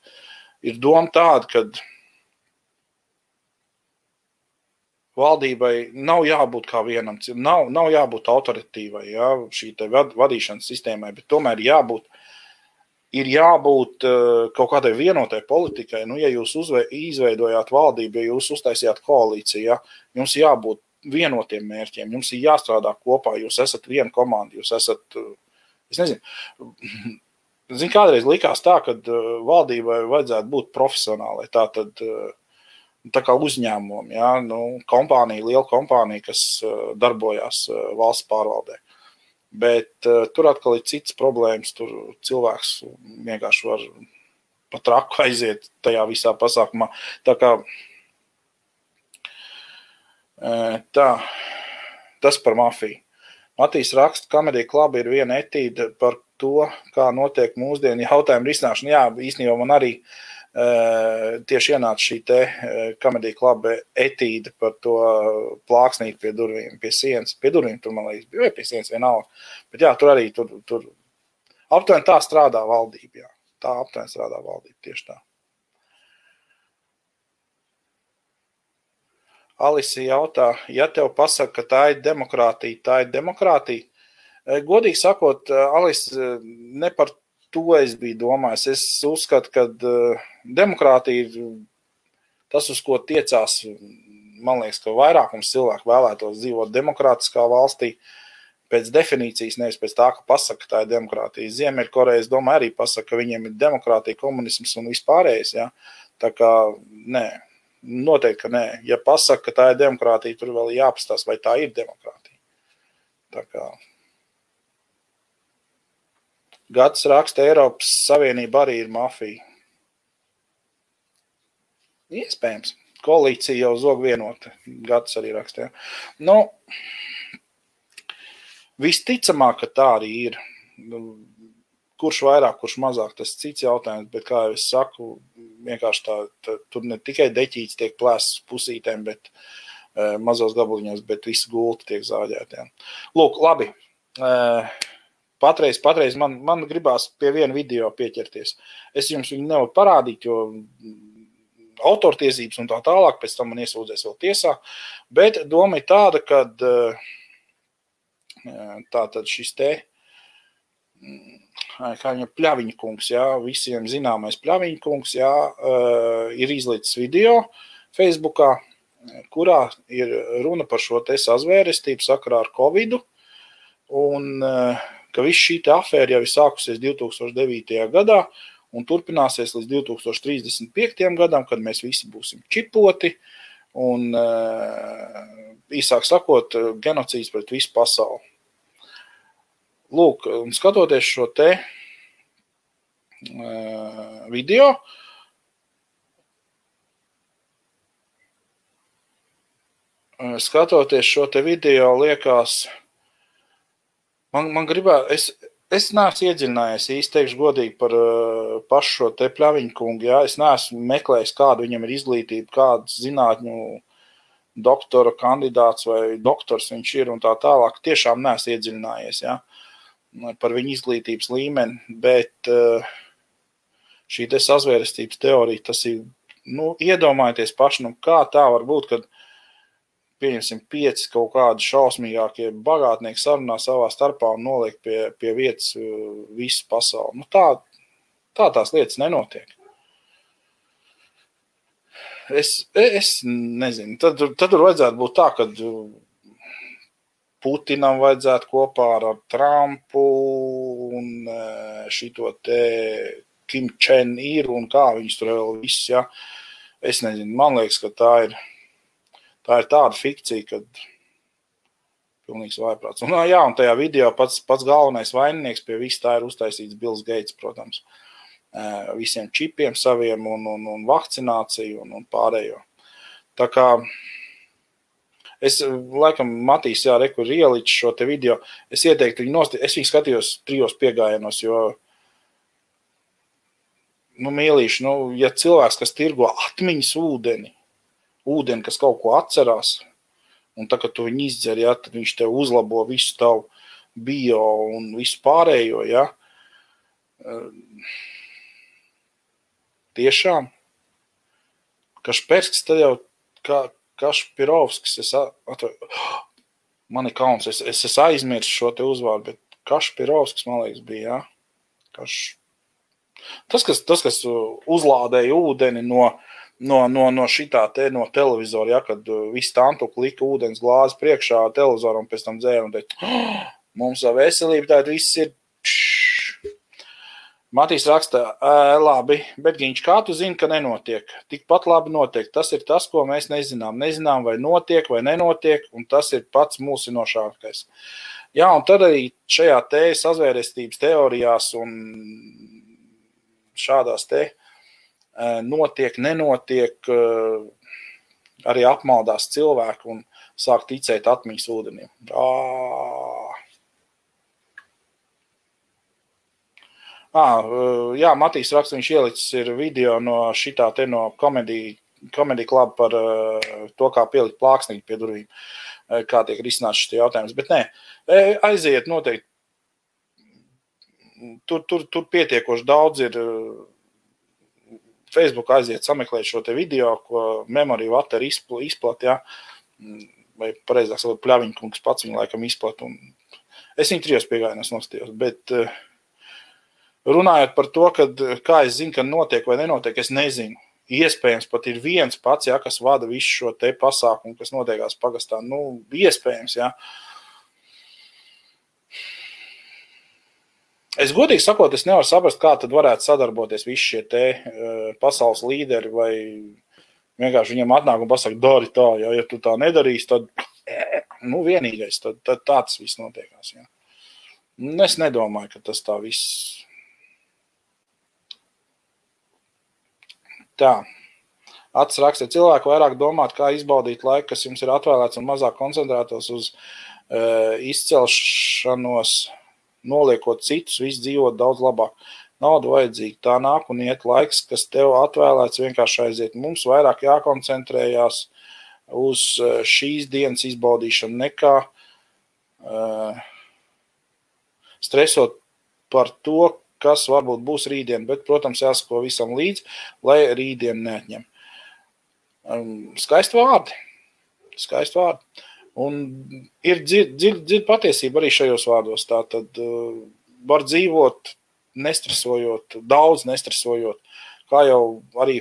ir doma tāda, ka valdībai nav jābūt kā vienam, nav jābūt autoritīvai, jā, šī te vadīšanas sistēmai, bet tomēr ir jābūt kaut kādai vienotai politikai. Ja jūs izveidojāt valdību, ja jūs uztaisījāt koalīciju, ja, jums jābūt vienotiem mērķiem, jums ir jāstrādā kopā, jūs esat viena komanda, jūs esat... Es nezinu, kādreiz likās tā, ka valdībai vajadzētu būt profesionālai, tā kā uzņēmumam, ja, liela kompānija, kas darbojās valsts pārvaldē. Bet tur atkal ir cits problēmas, tur cilvēks vienkārši var pa traku aiziet tajā visā pasākumā. Tas par mafiju. Matīs raksta, Comedy Club ir viena etīde par to, kā notiek mūsdienu jautājumu risināšana. Jā, īstenībā man arī tieši ienāca šī te Comedy Club etīde par to plāksnīt pie durvīm, pie sienas. Pie durvīm tur, man liekas, bija pie sienas vienalga. Bet jā, tur arī tur aptuveni tā strādā valdība, jā. Tā aptuveni strādā valdība, tieši tā. Alisi jautā, ja tev pasaka, ka tā ir demokrātija, Godīgi sakot, Alis, ne par to es biju domājis. Es uzskatu, ka demokrātija ir tas, uz ko tiecās, man liekas, ka vairākums cilvēku vēlētos dzīvot demokrātiskā valstī, pēc definīcijas, nevis pēc tā, ka pasaka, ka tā ir demokrātija. Ziemeļkoreja, es domāju, arī pasaka, ka viņiem ir demokrātija, komunisms un vispārējais, ja. Tā kā, nē, noteikti, ka nē. Ja pasaka, ka tā ir demokrātija, tur vēl jāpastās, vai tā ir demokrātija. Tā kā... Gads raksta, Eiropas Savienība arī ir mafija. Iespējams. Koalīcija jau zog vienota. Gads arī raksta. Ja. Nu, visticamāk, ka tā arī ir. Kurš vairāk, kurš mazāk, tas cits jautājums, bet, kā jau es saku, vienkārši tā tur ne tikai deķīts tiek plēsts pusītēm, bet mazos gabaliņos, bet visi gulti tiek zāģēti. Ja. Lūk, labi. Patreiz man gribās pie viena video pieķerties. Es jums viņu nevaru parādīt, jo autortiesības un tā tālāk, pēc tam man iesūdzēs vēl tiesā, bet doma ir tāda, kad tātad šis te, kā viņa Pļaviņa kungs, jā, visiem zināmais Pļaviņa kungs, jā, ir izlicis video Facebookā, kurā ir runa par šo te sazvērestību sakarā ar Covidu, un ka viss šī te afēra jau ir sākusies 2009. gadā un turpināsies līdz 2035. gadam, kad mēs visi būsim čipoti un, īsāk sakot, genocīds pret visu pasauli. Lūk, un skatoties šo te video, liekas, man gribētu, es neesmu iedziļinājies, īsti teikšu godīgi par pašu šo te Pļaviņu kungu, jā, es neesmu meklējis, kādu viņam ir izglītība, kāds zinātņu doktora kandidāts vai doktors viņš ir un tā tālāk, tiešām neesmu iedziļinājies, jā, par viņu izglītības līmeni, bet šī te sazvērestības teorija, tas ir, nu, iedomājieties paši, nu, kā tā var būt, kad pieņemsim 5 kaut kādi šausmīgākie bagātnieki sarunā savā starpā un noliek pie vietas visu pasauli. Nu, tā tās lietas nenotiek. Es nezinu. Tad tur vajadzētu būt tā, ka Putinam vajadzētu kopā ar Trumpu un šito te Kim Chen-ir un kā viņus tur vēl viss, ja. Es nezinu, man liekas, ka tā ir tāda fikcija, kad pilnīgs vājprāts. Un, jā, un tajā video pats galvenais vaininieks pie viss tā ir uztaisīts Bills Gates, protams. Visiem čipiem saviem un vakcināciju un pārējo. Tā kā es, laikam, Matīs, jā, rekur ieliču šo te video, es ieteiktu viņu es viņu skatījos 3 piegājienos, jo, nu, mīlīši, nu, ja cilvēks, kas tirgo atmiņas ūdeni, kas kaut ko atcerās, un tā, kad tu viņu izdzer, ja, tad viņš tev uzlabo visu tavu bio un visu pārējo, ja. Tiešām. Kašperskis, tad jau Kašpirovskis, man ir kauns, es aizmirsu šo te uzvārdu, bet Kašpirovskis, man liekas, bija, ja. Tas, kas uzlādēja ūdeni no šitā te, no televizora, ja, kad viss tantuku lika ūdens glāzi priekšā televizoram un pēc tam dzēra un teica, mums savu veselību, tātad viss ir Matīs raksta, labi, bet Giņš, kā tu zini, ka nenotiek? Tikpat labi notiek. Tas ir tas, ko mēs nezinām. Nezinām, vai notiek, vai nenotiek, un tas ir pats mulsinošākais. Jā, un tad arī šajā te sazvērestības teorijās un šādās te notiek, nenotiek, arī apmaldās cilvēku un sāk ticēt atmiņas ūdenim. Jā, Matīs raksta, viņš ielicis ir video no šitā te no Comedy Club par to, kā pielikt plāksnīgi pie durvīm, kā tiek risināts šis jautājums. Bet nē, aiziet noteikti. Tur pietiekoši daudz ir Facebook aiziet sameklēt šo te video, ko Memory Water izplat, jā, vai pareizāk sakot, Pļaviņkungs pats viņu laikam izplat. Es viņu 3 piegājienos nostījos, bet runājot par to, kad, kā es zinu, ka notiek vai nenotiek, es nezinu. Iespējams, pat ir viens pats, ja, kas vada visu šo te pasākumu, kas notiekās pagastā. Nu, iespējams, ja. Es godīgi sakot, es nevaru saprast, kā tad varētu sadarboties visi šie te pasaules līderi, vai vienkārši viņiem atnāk un pasaka, dari tā, ja tu tā nedarīsi, tad, vienīgais, tad tā tas viss notiekās, jā. Es nedomāju, ka tas tā viss. Tā. Ats raksta, cilvēki vairāk domāt, kā izbaudīt laiku, kas jums ir atvēlēts un mazāk koncentrētos uz izcelšanos, noliekot citus, viss dzīvot daudz labāk. Nauda vajadzīga, tā nāk un iet laiks, kas tev atvēlēts vienkārši aiziet. Mums vairāk jākoncentrējās uz šīs dienas izbaudīšanu nekā stresot par to, kas varbūt būs rītdien, bet, protams, jāsako visam līdz, lai rītdien neatņem. Skaisti vārdi. Un ir dziļa patiesība arī šajos vārdos. Tātad var dzīvot nestresojot, daudz nestresojot, kā jau arī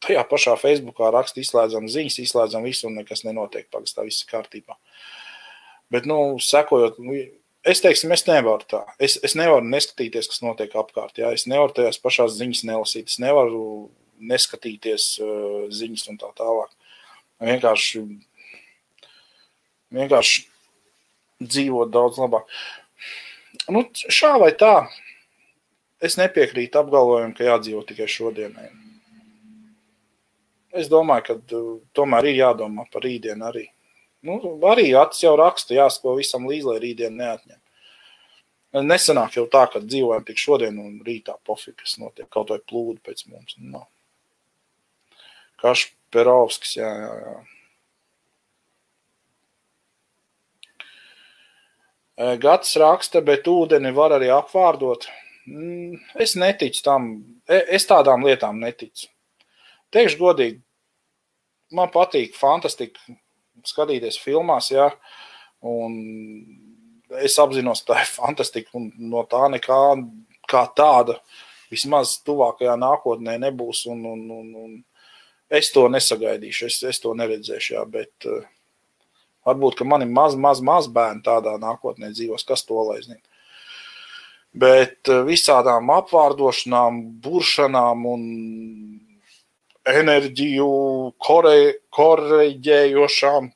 tajā pašā Facebookā raksta, izslēdzam ziņas, izslēdzam visu un nekas nenotiek, pagastā viss ir kārtībā. Bet, sekojot, es teiksim, es nevaru tā. Es nevaru neskatīties, kas notiek apkārt. Jā. Es nevaru tajās pašās ziņas nelasīt. Es nevaru neskatīties ziņas un tā tālāk. Vienkārši dzīvot daudz labāk. Šā vai tā, es nepiekrītu apgalvojumu, ka jādzīvo tikai šodienai. Es domāju, ka tomēr ir jādomā par rītdienu arī. Arī Ats jau raksta, jāsako visam līdz, lai rītdien neatņem. Nesanāk jau tā, ka dzīvojam tik šodien un rītā pofīgi, kas notiek, kaut vai plūdu pēc mums. Kašperovskis, jā. Gads raksta, bet ūdeni var arī apvārdot. Es neticu tam, es tādām lietām neticu. Teikšu godīgi, man patīk fantastika skatīties filmās, jā, un es apzinos, tā ir fantastika, un no tā nekā kā tāda vismaz tuvākajā nākotnē nebūs, un es to nesagaidīšu, es to neredzēšu, jā, bet varbūt, ka mani maz bērni tādā nākotnē dzīvos, kas to lai zina. Bet visādām apvārdošanām, buršanām un enerģiju koreģējošām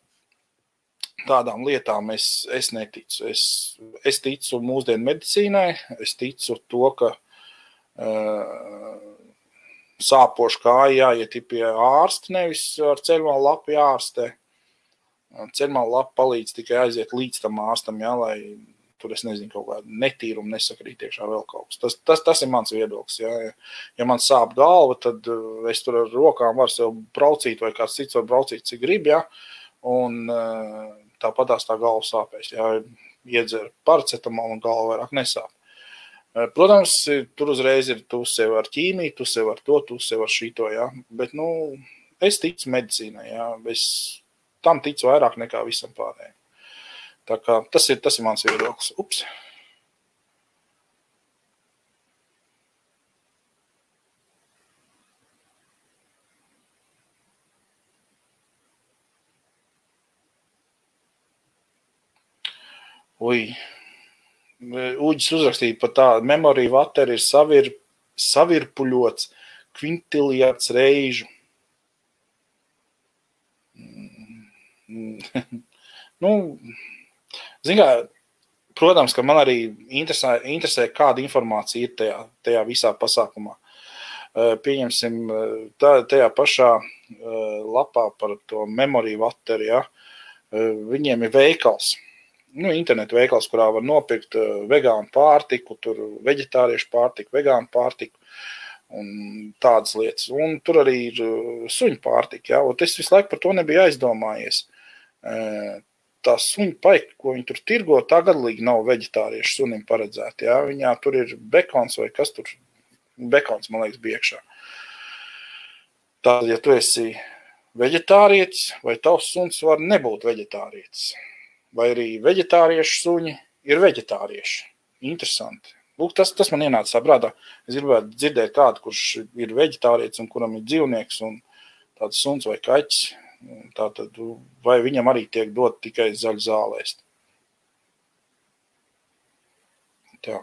tādām lietām es neticu. Es ticu mūsdienu medicīnai, es ticu to, ka sāpošu kāja jāiet pie ārsta, nevis ar ceļmalu lapu jārastē. Ceļmalu lapa palīdz tikai aiziet līdz tam ārstam, jā, lai tur es nezinu, kaut kādu netīrumu nesakrīt iekšā vēl kaut kas. Tas ir mans viedoklis. Jā. Ja man sāp galva, tad es tur ar rokām varu sev braucīt, vai kāds cits var braucīt, cik grib, jā. Un tāpatās tā galva sāpēs. Jā. Iedzer paracetamolu un galva vairāk nesāp. Protams, tur uzreiz ir tu sev ar ķīmiju, tu sev ar to, tu sev ar šito, jā. Bet, es ticu medicīnai, jā. Es tam ticu vairāk nekā visam pārējiem. Tā kā tas ir mans viedoklis. Ups. Uģis uzrakstīja par tādu, memorija vateri ir savirpuļots kvintiljārds reižu. Protams, ka man arī interesē, kāda informācija ir tajā visā pasākumā. Pieņemsim, tajā pašā lapā par to memoriju vateri, ja, viņiem ir veikals, internetu veikals, kurā var nopirkt vegānu pārtiku, tur veģetāriešu pārtiku, vegānu pārtiku un tādas lietas. Un tur arī ir suņu pārtika, ja, un es visu laiku par to nebiju aizdomājies. Tā suņu paika, ko viņi tur tirgo, tā gadlīgi nav veģetāriešu sunim paredzēta. Ja? Viņā tur ir bekons vai kas tur, bekons, man liekas, bija iekšā. Tātad, ja tu esi veģetārietis, vai tavs suns var nebūt veģetārietis, vai arī veģetāriešu suņi ir veģetārieši. Interesanti. Lūk, tas man ienāca prātā. Es gribētu dzirdēt kādu, kurš ir veģetārietis un kuram ir dzīvnieks un tāds suns vai kaķis. Tātad, vai viņam arī tiek dot tikai zaļu zālēst. Tā.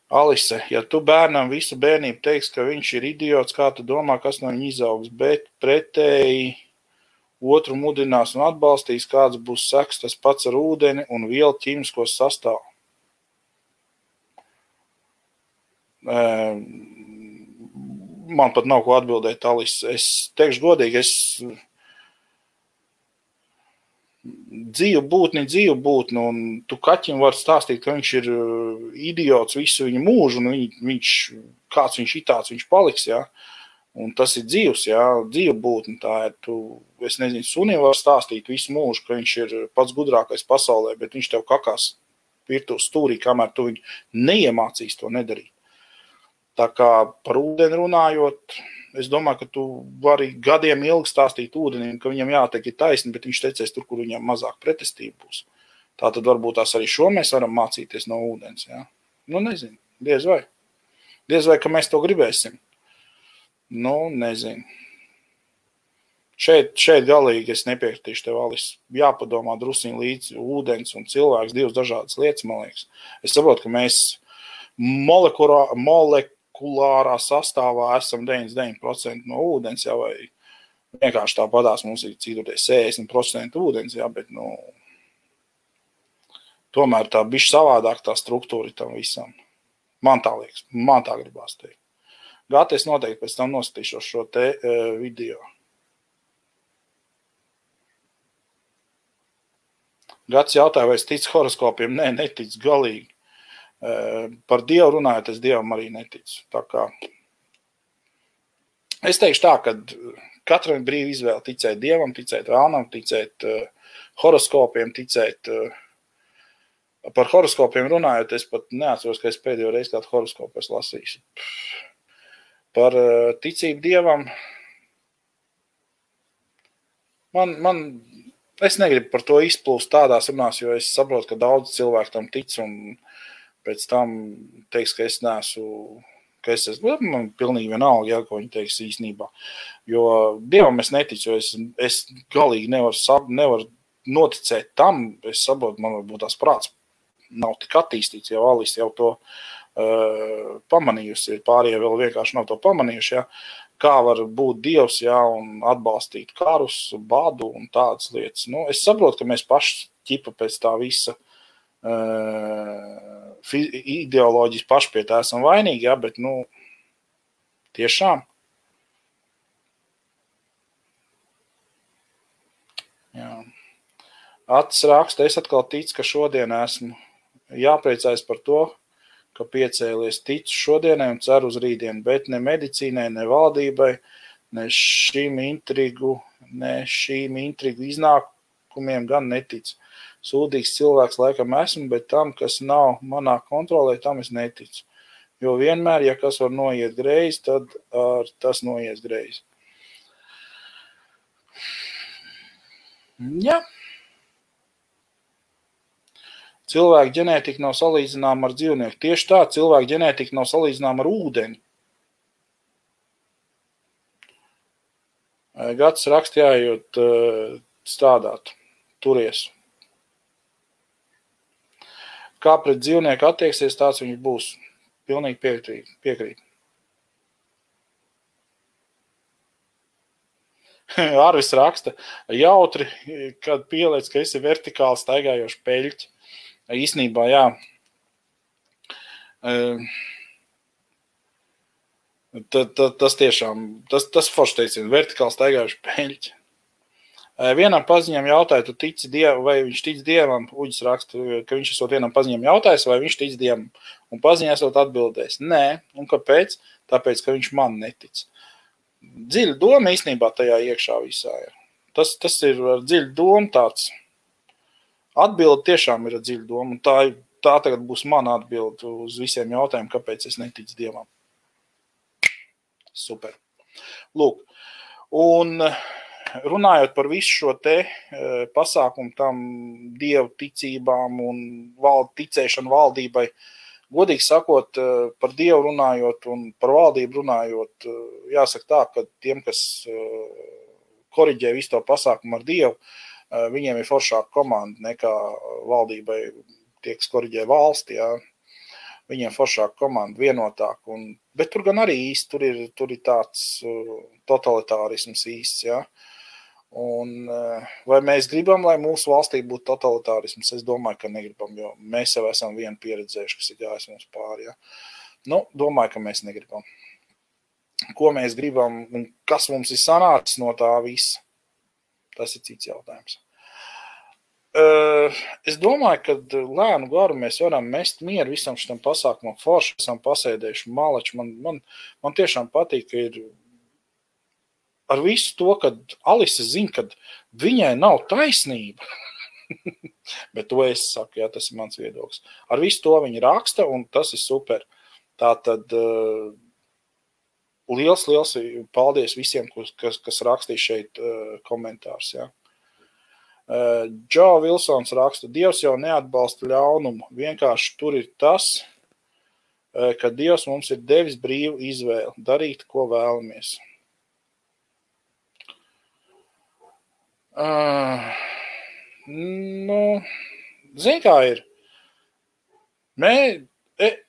Alise, ja tu bērnam visu bērnību teiks, ka viņš ir idiots, kā tu domā, kas no viņa izaugs, bet pretēji otru mudinās un atbalstīs, kāds būs seks, tas pats ar ūdeni un vielu ķīmiskos sastāvu. Man pat nav ko atbildēt, Alise. Es teikšu godīgi, dzīvu būtni, un tu kaķim var stāstīt, ka viņš ir idiots visu viņa mūžu, un kāds viņš itāds viņš paliks, jā. Un tas ir dzīvs, jā, dzīva būtni, tā ir, es nezinu, sunim var stāstīt visu mūžu, ka viņš ir pats gudrākais pasaulē, bet viņš tev kakās virtuves stūrī, kamēr tu viņu neiemācīs to nedarīt. Tā kā par ūdeni runājot, es domāju, ka tu vari gadiem ilgi stāstīt ūdenim, ka viņam jātek ir taisni, bet viņš tecēs tur, kur viņam mazāk pretestība būs. Tā tad varbūt tās arī šo mēs varam mācīties no ūdens, jā. Nu, nezinu, diez vai. Diez vai, ka mēs to gribēsim. Nu, nezinu. Šeit galīgi es nepiekritīšu tev, Alise. Jāpadomā drusiņ līdz ūdens un cilvēks, divas dažādas lietas, man liekas. Es saprotu, ka mēs molekulārā sastāvā esam 99% no ūdens, jā, vai vienkārši tāpatās mums ir cītoties 60% ūdens, jā, bet, tomēr tā bišķi savādāk tā struktūra tam visam. Man tā liekas, man tā gribās teikt. Gati, es noteikti pēc tam noskatīšos šo te video. Gats jautāja, vai es ticu horoskopiem? Nē, neticu galīgi. Par Dievu runājot, es Dievam arī neticu. Tā kā es teikšu tā, ka katram ir brīva izvēle ticēt Dievam, ticēt vēlnam, ticēt horoskopiem, ticēt. Par horoskopiem runājot, es pat neatceros, ka es pēdējo reizi kādu horoskopu es lasīšu. Par ticību Dievam es negribu par to izplūst tādās runās, jo es saprotu, ka daudz cilvēku tam tic un pēc tam teiks, ka es neesmu, man pilnīgi vienalga, ja, ko viņi teiks īstenībā. Jo Dievam es neticu, jo es galīgi nevaru noticēt tam, es saprotu, man varbūt tās prāts nav tik attīstīts, jau Alise jau to pamanījusi, pārējie vēl vienkārši nav to pamanījuši, ja, kā var būt Dievs, ja, un atbalstīt karus, badu un tādas lietas. Nu, es saprotu, ka mēs paši ķipa pēc tā visa ideoloģijas paši pie tā esam vainīgi, ja, bet, tiešām. Jā. Acis raksta, es atkal ticu, ka šodien esmu jāpriecājas par to, ka piecēlies ticu šodienai un ceru uz rītdienu, bet ne medicīnai, ne valdībai, ne šīm intrigu iznākumiem gan neticu. Sūdīgs cilvēks laikam esmu, bet tam, kas nav manā kontrolē, tam es neticu. Jo vienmēr, ja kas var noiet greizi, tad tas noies greizi. Jā. Cilvēka ģenētika nav salīdzināma ar dzīvnieku. Tieši tā, cilvēka ģenētika nav salīdzināma ar ūdeni. Gads rakstījājot strādāt, turies. Kā pret dzīvnieku attieksies, tāds viņš būs. Pilnīgi piekrīt. Arvis raksta, jautri, kad pieliec, ka esi vertikāli staigājoši peļķi. Īsnībā, jā. Tas tiešām, tas forši teicien, vertikāli staigājuši peļķi. Vienam paziņam jautāja, tu tici Dievam, vai viņš tic Dievam, Uģis raksta, ka viņš esot vienam paziņam jautājis, vai viņš tic Dievam, un paziņā esot atbildējis. Nē, un kāpēc? Tāpēc, ka viņš man netic. Dziļa doma īstenībā tajā iekšā visā ir. Tas ir dziļa doma tāds. Atbilde tiešām ir dziļa doma, un tā tagad būs mana atbilde uz visiem jautājumiem, kāpēc es neticu Dievam. Super. Lūk, un runājot par visu šo te pasākumu tam Dievu ticībām un ticēšanu valdībai, godīgi sakot, par Dievu runājot un par valdību runājot, jāsaka tā, ka tiem, kas koriģē visu to pasākumu ar Dievu, viņiem ir foršāka komanda nekā valdībai tie, kas koriģē valsti. Jā. viņiem foršāka komanda, vienotāk. Bet tur gan arī īsti, tur ir tāds totalitārisms īsts, ja. Un vai mēs gribam, lai mūsu valstī būtu totalitārisms? Es domāju, ka negribam, jo mēs jau esam vienu pieredzējuši, kas ir gājis mums pāri, ja. Nu, domāju, ka mēs negribam. Ko mēs gribam un kas mums ir sanācis no tā visa? Tas ir cits jautājums. Es domāju, ka lēnu garu mēs varam mest mieru visam šitam pasākumam. Forši esam pasēdējuši malači. Man tiešām patīk, ka ir ar visu to, kad Alise zina, ka viņai nav taisnība. Bet to es saku, jā, tas ir mans viedoklis. Ar visu to viņa raksta, un tas ir super. Tātad liels paldies visiem, kas rakstīja šeit komentārus, jā. Džo Vilsons raksta, Dievs jau neatbalsta ļaunumu, vienkārši tur ir tas, ka Dievs mums ir devis brīvu izvēli, darīt, ko vēlamies. Zini, kā ir?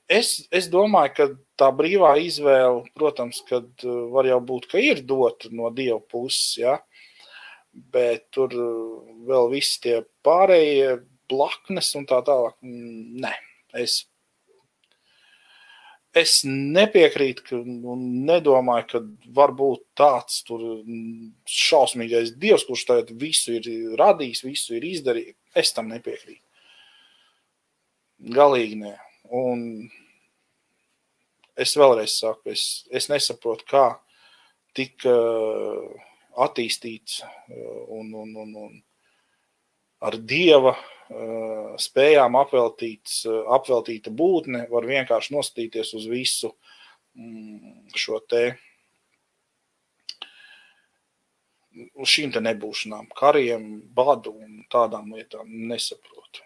Es domāju, ka tā brīvā izvēle, protams, kad var jau būt, ka ir dota no Dieva puses, ja? Bet tur vēl visi tie pārējie blaknes un tā tālāk. Nē, es nepiekrītu un nedomāju, ka var būt tāds tur šausmīgais Dievs, kurš tagad visu ir radījis, visu ir izdarījis. Es tam nepiekrītu. Galīgi nē. Un es vēlreiz saku, es nesaprotu, kā tik attīstīts un ar Dieva spējām apveltīta būtne var vienkārši nostīties uz visu šo te uz šīm te nebūšanām, kariem, badu un tādām lietām nesaprotu.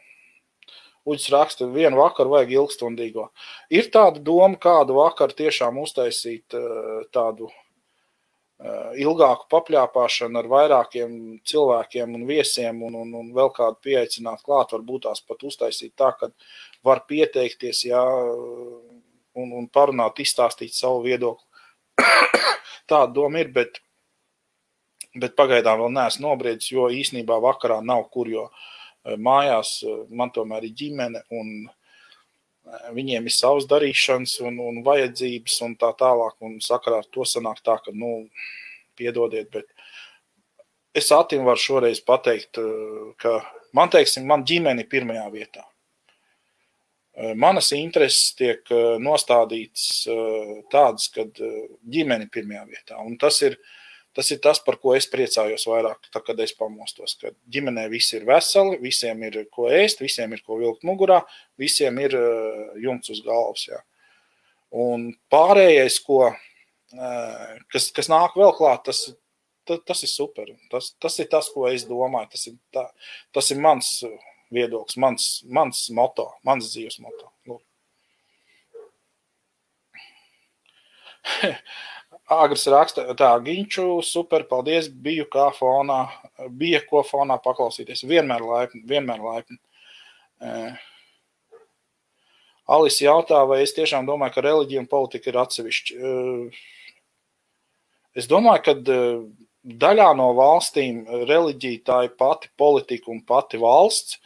Uģis raksta, vienu vakaru vajag ilgstundīgo. Ir tāda doma, kādu vakaru tiešām uztaisīt tādu ilgāku papļāpāšanu ar vairākiem cilvēkiem un viesiem un vēl kādu pieaicināt klāt, varbūt tās pat uztaisīt tā, ka var pieteikties, jā, un parunāt, izstāstīt savu viedokli. Tāda doma ir, bet pagaidām vēl neesmu nobriedis, jo īsnībā vakarā nav kur, jo mājās man tomēr ir ģimene un viņiem ir savas darīšanas un vajadzības un tā tālāk, un sakarā ar to sanāk tā, ka, piedodiet, bet es Atim varu šoreiz pateikt, ka man ģimene ir pirmajā vietā. Manas intereses tiek nostādīts tādas, kad ģimene ir pirmajā vietā, un tas ir tas, par ko es priecājos vairāk, tā, kad es pamostos, ka ģimenē visi ir veseli, visiem ir ko ēst, visiem ir ko vilkt mugurā, visiem ir jumts uz galvas. Jā. Un pārējais, kas nāk vēl klāt, tas ir super. Tas ir tas, ko es domāju. Tas ir mans viedoklis, mans moto, mans dzīves moto. Agris raksta, tā, Ginču, super, paldies, bija ko fonā paklausīties. Vienmēr laipni. Alise jautā, vai es tiešām domāju, ka reliģija un politika ir atsevišķi. Es domāju, ka daļā no valstīm reliģija tā ir pati politika un pati valsts.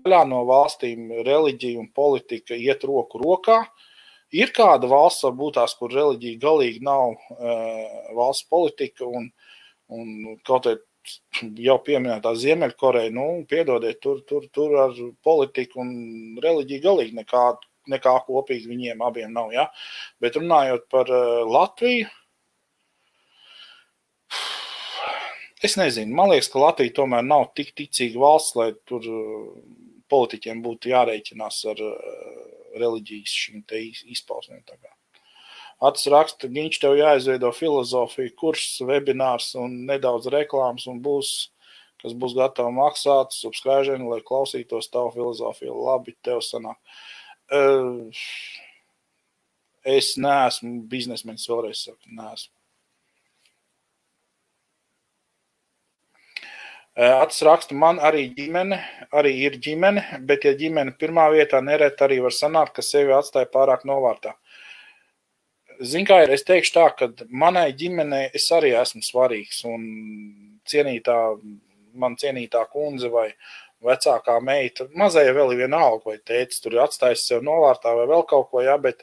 Daļā no valstīm reliģija un politika iet roku rokā. Ir kāda valsts, varbūt tās, kur reliģija galīgi nav valsts politika un kaut jau pieminētā Ziemeļkoreja, piedodiet, tur ar politiku un reliģiju galīgi nekā kopīgi viņiem abiem nav, ja? Bet runājot par Latviju, es nezinu, man liekas, ka Latvija tomēr nav tik ticīga valsts, lai tur politiķiem būtu jārēķinās ar reliģijas šīm te izpausmēm. Atis raksta, Ginč, tev jāizveido filozofija, kurs, webinārs un nedaudz reklāmas un kas būs gatavi maksāt, subscribe, lai klausītos tavu filozofiju. Labi, tev sanāk. Es neesmu biznesmenis, vēlreiz saku, neesmu. Atis raksta, man arī ir ģimene, bet ja ģimene pirmā vietā nereti arī var sanākt, ka sevi atstāja pārāk novārtā. Zin kā ir, es teikšu tā, ka manai ģimenei es arī esmu svarīgs un man cienītā kundze vai vecākā meita, mazajā vēl ir vienalga, vai tētis tur ir atstājis sev novārtā vai vēl kaut ko, jā, bet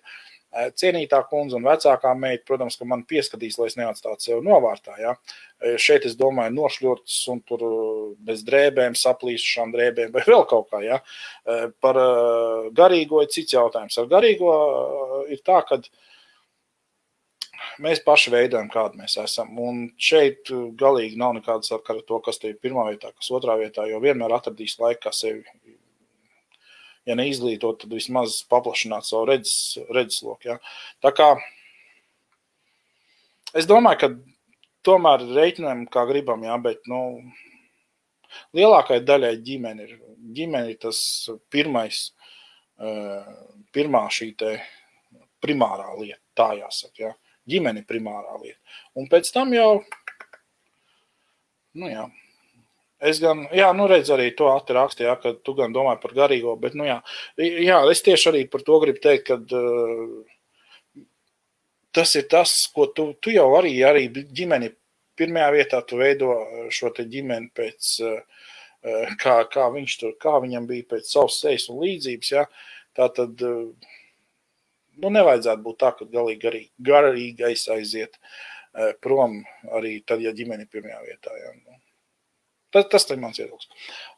cienītā kundze un vecākā meita, protams, ka man pieskatīs, lai es neatstātu sev novārtā, jā. Šeit es domāju nošļurtas un tur bez drēbēm, saplīsušām drēbēm vai vēl kaut kā, jā. Par garīgo ir cits jautājums. Ar garīgo ir tā, ka mēs paši veidojam, kādi mēs esam. Un šeit galīgi nav nekāda sakara ar to, kas te ir pirmā vietā, kas otrā vietā, jo vienmēr atradīs laiku, kā sevi, ja neizglītot, tad vismaz paplašināt savu redzesloku. Ja. Tā kā es domāju, ka tomēr reiķinām, kā gribam, ja, bet lielākai daļai ģimene ir tas pirmā šī te primārā lieta, tā jāsaka, ja. Ģimene primārā lieta. Un pēc tam jau, es gan, redz arī to Ati raksti, ja, ka tu gan domāji par garīgo, bet, es tieši arī par to gribu teikt, ka tas ir tas, ko tu jau arī ģimeni pirmajā vietā, tu veido šo te ģimeni pēc, kā viņam bija pēc savas sejas un līdzības, ja, tā tad, nevajadzētu būt tā, ka galīgi garīgais aiziet prom arī tad, ja ģimeni pirmajā vietā, ja, Tas ir mans viedoklis.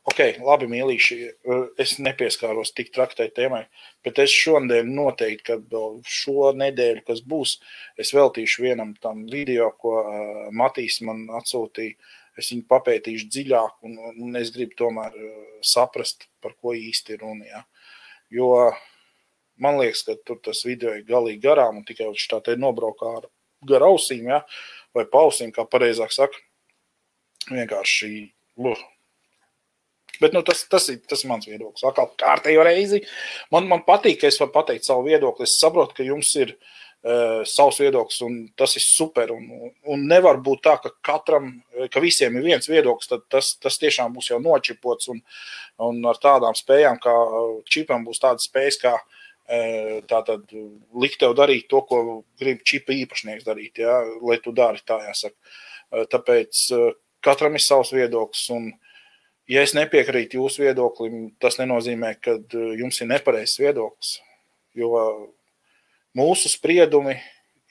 Ok, labi, mīlīši, es nepieskāros tik traktai tēmai, bet es šonadēļ noteikti, kad šo nedēļu, kas būs, es veltīšu vienam tam video, ko Matīs man atsūtīja. Es viņu papētīšu dziļāk un es gribu tomēr saprast, par ko īsti ir runa. Ja? Jo man liekas, ka tur tas video ir galīgi garām un tikai viņš tā te nobraukā gar ausīm, ja? Vai pausīm, kā pareizāk saka. Vienkārši Bet tas ir mans viedoklis. Atkal kārtējo reizi. Man patīk, ka es varu pateikt savu viedokli. Es saprotu, ka jums ir savs viedoklis un tas ir super. Un nevar būt tā, ka visiem ir viens viedoklis, tad tas tiešām būs jau nočipots un ar tādām spējām, kā čipam būs tādas spējas, kā tātad likt tev darīt to, ko grib čipa īpašnieks darīt, ja, lai tu dari tā, jāsaka. Tāpēc katram ir savs viedoklis, un ja es nepiekrītu jūsu viedoklim, tas nenozīmē, ka jums ir nepareizs viedoklis, jo mūsu spriedumi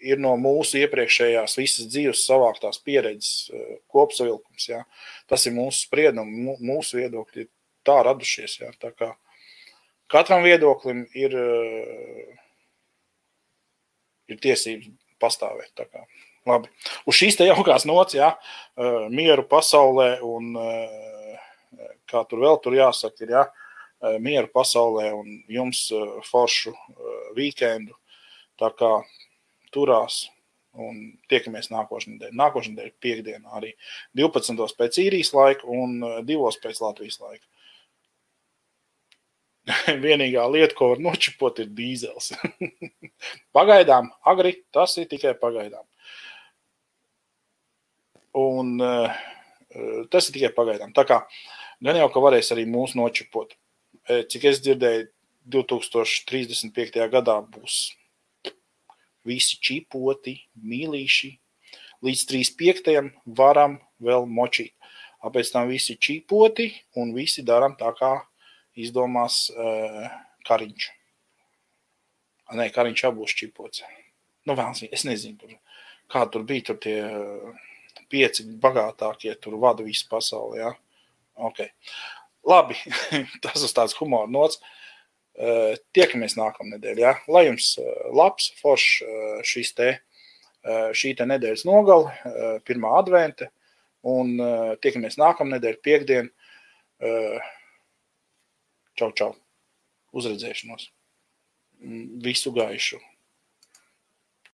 ir no mūsu iepriekšējās visas dzīves savāktās pieredzes kopsavilkums. Ja. Tas ir mūsu spriedumi, mūsu viedokļi ir tā radušies. Ja. Tā kā katram viedoklim ir tiesības pastāvēt. Tā kā. Labi. Uz šīs te jaukās nots, ja, mieru pasaulē un kā tur vēl tur jāsaka, ir, ja, mieru pasaulē un jums foršu vīkendu. Tā kā turās un tiekamies nākošajā nedēļā. Nākošajā nedēļa piekdienā arī 12. pēc īrijas laika un 2. pēc Latvijas laika. Vienīgā lieta, ko var nočipot, ir dīzels. Pagaidām, agri, tas ir tikai pagaidām. Un tas ir tikai pagaidām. Tā kā gan jau, ka varēs arī mūs nočipot. Cik es dzirdēju, 2035. gadā būs visi čipoti, mīlīši. Līdz 35. varam vēl močīt. Pēc tam visi čipoti un visi daram tā, kā izdomās Kariņš. Nē, Kariņš jau būs čipots. Es nezinu, kā tur bija tur tie 5 bagātākie, tur vada visu pasauli, ja? Ok. Labi, tas uz tāds humora nots. Tiekamies nākamnedēļ, ja? Lai jums labs, foršs šī te nedēļas nogali, 1. advente, un tiekamies nākamnedēļ, piekdien. Čau, čau. Uzredzēšanos. Visu gaišu.